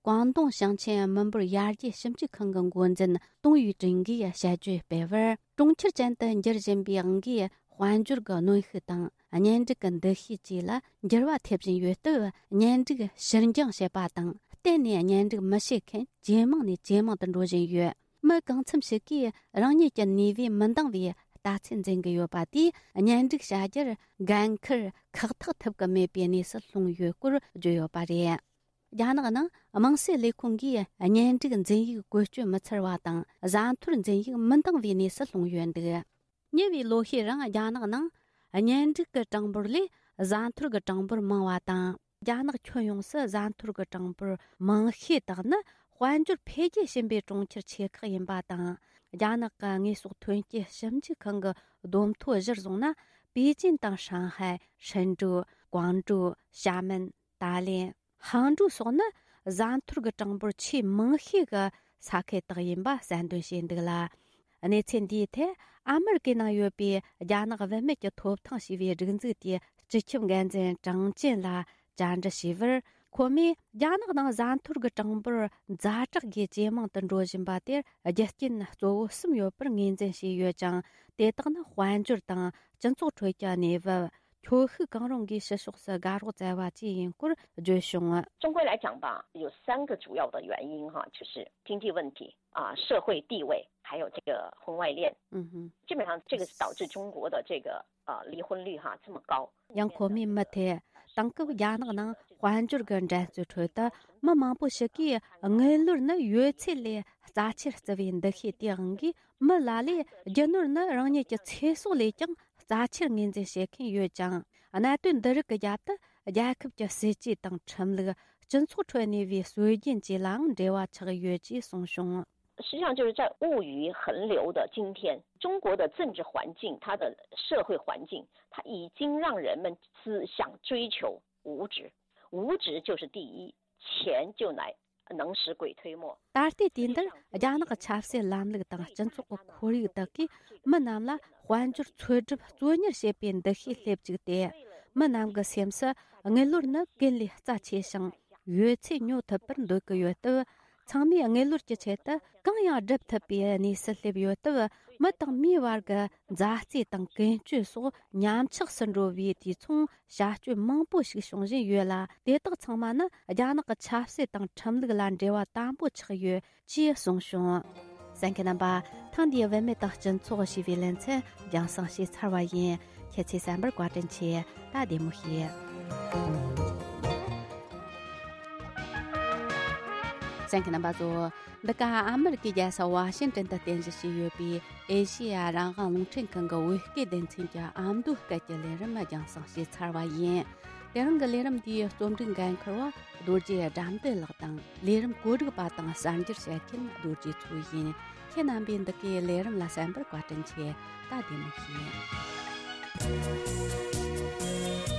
ཀོང་ཏུང་ཞིང་ཆེན་མི་འབོར་ཡར་རྒྱས་ཞིབ་འཇུག་ཁང་གི་འགོ་འཛིན་ཏུང་ཡུས་ཀྲིན་གྱིས་དཔྱད་བརྗོད་སྤེལ་བར། གྲོང་ཁྱེར་ཅན་དུ་འགྱུར་བཞིན་པའི་དབང་གིས། དཔལ་འབྱོར་གྱི་གནོན་ཤུགས་དང་། གཉེན་སྒྲིག་གི་འདུ་ཤེས་བཅས་ལ་འགྱུར་བ་ཐེབས་བཞིན་ཡོད་སྟབས། གཉེན་སྒྲིག་ཕྱིར་འགྱངས་བྱེད་པ་དང་། གཏན་ནས་གཉེན་སྒྲིག་མི་བྱེད་མཁན་ཇེ་མང་ནས་ཇེ་མང་དུ་འགྲོ་བཞིན་ཡོད། མི་གང་འཚམ་ཞིག་གིས་རང་ཉིད་ཀྱི་ནུས་པས་མི་འདང་བའི་ལྟ་ཚུལ་འཛིན་གྱི་ཡོད་པ་དེས། གཉེན་སྒྲིག་བྱ་རྒྱུར་འགན་འཁུར་ཁག་ཐེག་ཐུབ་ཀྱི་མེད་པའི་གནས་སུ་ལྷུང་ཡོད་སྐོར་བརྗོད་ཡོད་པ་རེད། རྒྱ་ནག་ནང་དམངས་སྲིད་ལས་ཁུངས་ཀྱིས་གཉེན་སྒྲིག་འཛིན་ཡིག་བཀོལ་སྤྱོད་མི་འཚར་བ་དང་། བཟའ་འཐོར་འཛིན་ཡིག་མི་འདང་བའི་གནས་སུ་ལྷུང་ཡོད་འདུག། ཉེ་བའི་ལོ་ཤས་རིང་རྒྱ་ནག་ནང་གཉེན་སྒྲིག་གི་གྲངས་འབོར་ལས་བཟའ་འཐོར་གྱི་གྲངས་འབོར་མང་བ་དང་། རྒྱ་ནག་ཁྱོན་ཡོངས་སུ་བཟའ་འཐོར་གྱི་གྲངས་འབོར་མང་ཤོས་དག་ནི་དཔལ་འབྱོར་འཕེལ་རྒྱས་ཕྱིན་པའི་གྲོང་ཁྱེར་ཆེ་ཁག་ཡིན་པ་དང་། རྒྱ་ནག་གི་དངོས་ཟོག་ཐོན་སྐྱེད་ཞིབ་འཇུག་ཁང་གི་བསྡོམས་ཐོ་གཞིར་བཟུང་ན། པེ་ཅིན་དང་ཧྲང་ཧའེ། ཧྲན་ཀྲུའུ། ཀོང་ཀྲོའུ། ཞྭ་མེན། ཏཱ་ལེན། ཧང་ཀྲོའུ་སོགས་ནི་བཟའ་འཐོར་གྱི་གྲངས་འབོར་ཆེས་མང་ཤོས་ཀྱི་ས་ཁུལ་དག་ཡིན་པ་གསལ་འདོན་བྱས་འདུག་ལ། གནས་ཚུལ་འདིའི་ཐད་ཨ་མེ་རི་ཀའི་ནང་ཡོད་པའི་རྒྱ་ནག་བུད་མེད་ཀྱི་ཐོབ་ཐང་ཞེས་པའི་སྒྲིག་འཛུགས་དེའི་སྤྱི་ཁྱབ་འགན་འཛིན་ཀྲང་ཅན་ལ་བཅར་འདྲི་བྱས་པར། ཁོ་མོས་རྒྱ་ནག་ནང་བཟའ་འཐོར་གྱི་གྲངས་འབོར་ཛ་དྲག་གིས་ཇེ་མང་དུ་འགྲོ་བཞིན་པ་དེར་རྒྱུ་རྐྱེན་གཙོ་བོ་གསུམ་ཡོད་པར་ངོས་འཛིན་བྱས་ཡོད་ཀྱང་། དེ་དག་ནི་དཔལ་འབྱོར་དང་སྤྱི་ཚོགས་ཁྲོད་ཀྱི་གནས་བབ། ཁྱོ་ཤུག་གང་རུང་གིས་ཕྱི་ཕྱོགས་སུ་དགའ་རོགས་བཙལ་བ་བཅས་ཡིན་སྐོར་བརྗོད་བྱུང་། 中国来讲吧，有三个主要的原因哈，就是经济问题啊、社会地位，还有这个婚外恋。嗯哼。基本上这个是导致中国的这个呃离婚率哈这么高。 ཡང་ཁོ་མོས་མུ་མཐུད། དེང་སྐབས་རྒྱ་ནག་ནང་དཔལ་འབྱོར་གྱི་འགྲན་རྩོད་ཁྲོད་དུ། མི་མང་པོ་ཞིག་གིས་དངུལ་ལོར་ནི་ཡོད་ཚད་ལས་རྩ་ཆེར་བརྩི་བའི་འདུ་ཤེས་དེའི་དབང་གིས། མི་ལ་ལས་རྒྱུ་ནོར་ནི་རང་ཉིད་ཀྱི་ཚེ་སྲོག་ལས་ཀྱང་རྩ་ཆེར་ངོས་འཛིན་བྱེད་མཁན་ཡོད་ཅིང་། གནད་དོན་འདི་རིགས་ཀྱི་རྒྱབ་ཏུ་རྒྱལ་ཁབ་ཀྱི་སྲིད་ཇུས་དང་ཁྲིམས་ལུགས། སྤྱི་ཚོགས་ཁྲོད་གནས་པའི་སྲོལ་རྒྱུན་བཅས་ལའང་འབྲེལ་བ་ཆགས་ཡོད་ཅེས་གསུངས་བྱུང་། 实际上，就是在物欲横流的今天，中国的政治环境，它的社会环境，它已经让人们只想追求物质，物质就是第一，钱就来能使鬼推磨。 ད་ལྟའི་དུས་འདིར་རྒྱ་ནག་གི་ཆབ་སྲིད་ལམ་ལུགས་དང་སྤྱི་ཚོགས་ཀྱི་ཁོར་ཡུག་དག་གིས་མི་རྣམས་ལ་དཔལ་འབྱོར་འཚོལ་སྒྲུབ་བཙོན་ཉར་བྱེད་པའི་འདུ་ཤེས་སླེབས་བཅུག་སྟེ། མི་རྣམས་ཀྱི་སེམས་སུ་དངུལ་ལོར་ནི་ཀུན་ལས་རྩ་ཆེ་ཞིང་། ཡོད་ཚད་ཉོ་ཐུབ་པར་འདོད་ཀྱི་ཡོད་སྟབས། ཚང་མས་དངུལ་ལོར་གྱི་ཆེད་དུ་གང་ཡང་སྒྲུབ་ཐུབ་པའི་གནས་སུ་སླེབས་ཡོད་སྟབས། མི་དང་མིའི་བར་གྱི་མཛའ་བརྩེ་དང་ཀུན་སྤྱོད་སོགས་ཉམས་ཆག་སུ་འགྲོ་བའི་དུས་མཚུངས་བྱ་སྤྱོད་མང་པོ་ཞིག་བྱུང་བཞིན་ཡོད་ལ། དེ་དག་ཚང་མ་ནི་རྒྱ་ནག་གི་ཆབ་སྲིད་དང་ཁྲིམས་ལུགས་ལ་འབྲེལ་བ་དམ་པོ་ཆགས་ཡོད་ཅེས་གསུངས་བྱུང་། གསན་མཁན་རྣམ་པ། ཐེངས་འདིའི་བུད་མེད་དང་སྤྱི་ཚོགས་ཞེས་པའི་ལེ་ཚན་རྒྱང་སྲིང་བྱས་ཚར་བ་ཡིན། ཁྱེད་ཚོས་གསན་པར་བཀའ་དྲིན་ཆེ། ད་བདེ་མོ་བྱོས། གསན་མཁན་རྣམ་པ་ཚོ། འདི་ག་ཨ་མེ་རི་ཀའི་རྒྱལ་ས་ཝ་ཤིང་ཏན་དུ་རྟེན་གཞི་བྱས་ཡོད་པའི་ཨེ་ཤེ་ཡ་རང་དབང་རླུང་འཕྲིན་ཁང་གི་བོད་སྐད་སྡེ་ཚན་གྱི་ཨ་མདོའི་སྐད་ཀྱི་ལས་རིམ་རྒྱང་སྲིང་བྱས་ཚར་བ་ཡིན། དེ་རིང་གི་ལས་རིམ་འདིའི་རྩོམ་སྒྲིག་འགན་འཁུར་བ་རྡོ་རྗེ་དགྲ་འདུལ་ལགས་དང་། ལས་རིམ་བཀོད་སྒྲིག་པ་དང་གསར་འགྱུར་བཤད་མཁན་རྡོ་རྗེ་མཚོ་ཡིན། ཁྱེད་རྣམ་པས་འདི་གའི་ལས་རིམ་ལ་གསན་པར་བཀའ་དྲིན་ཆེ། ད་བདེ་མོ་བྱོས།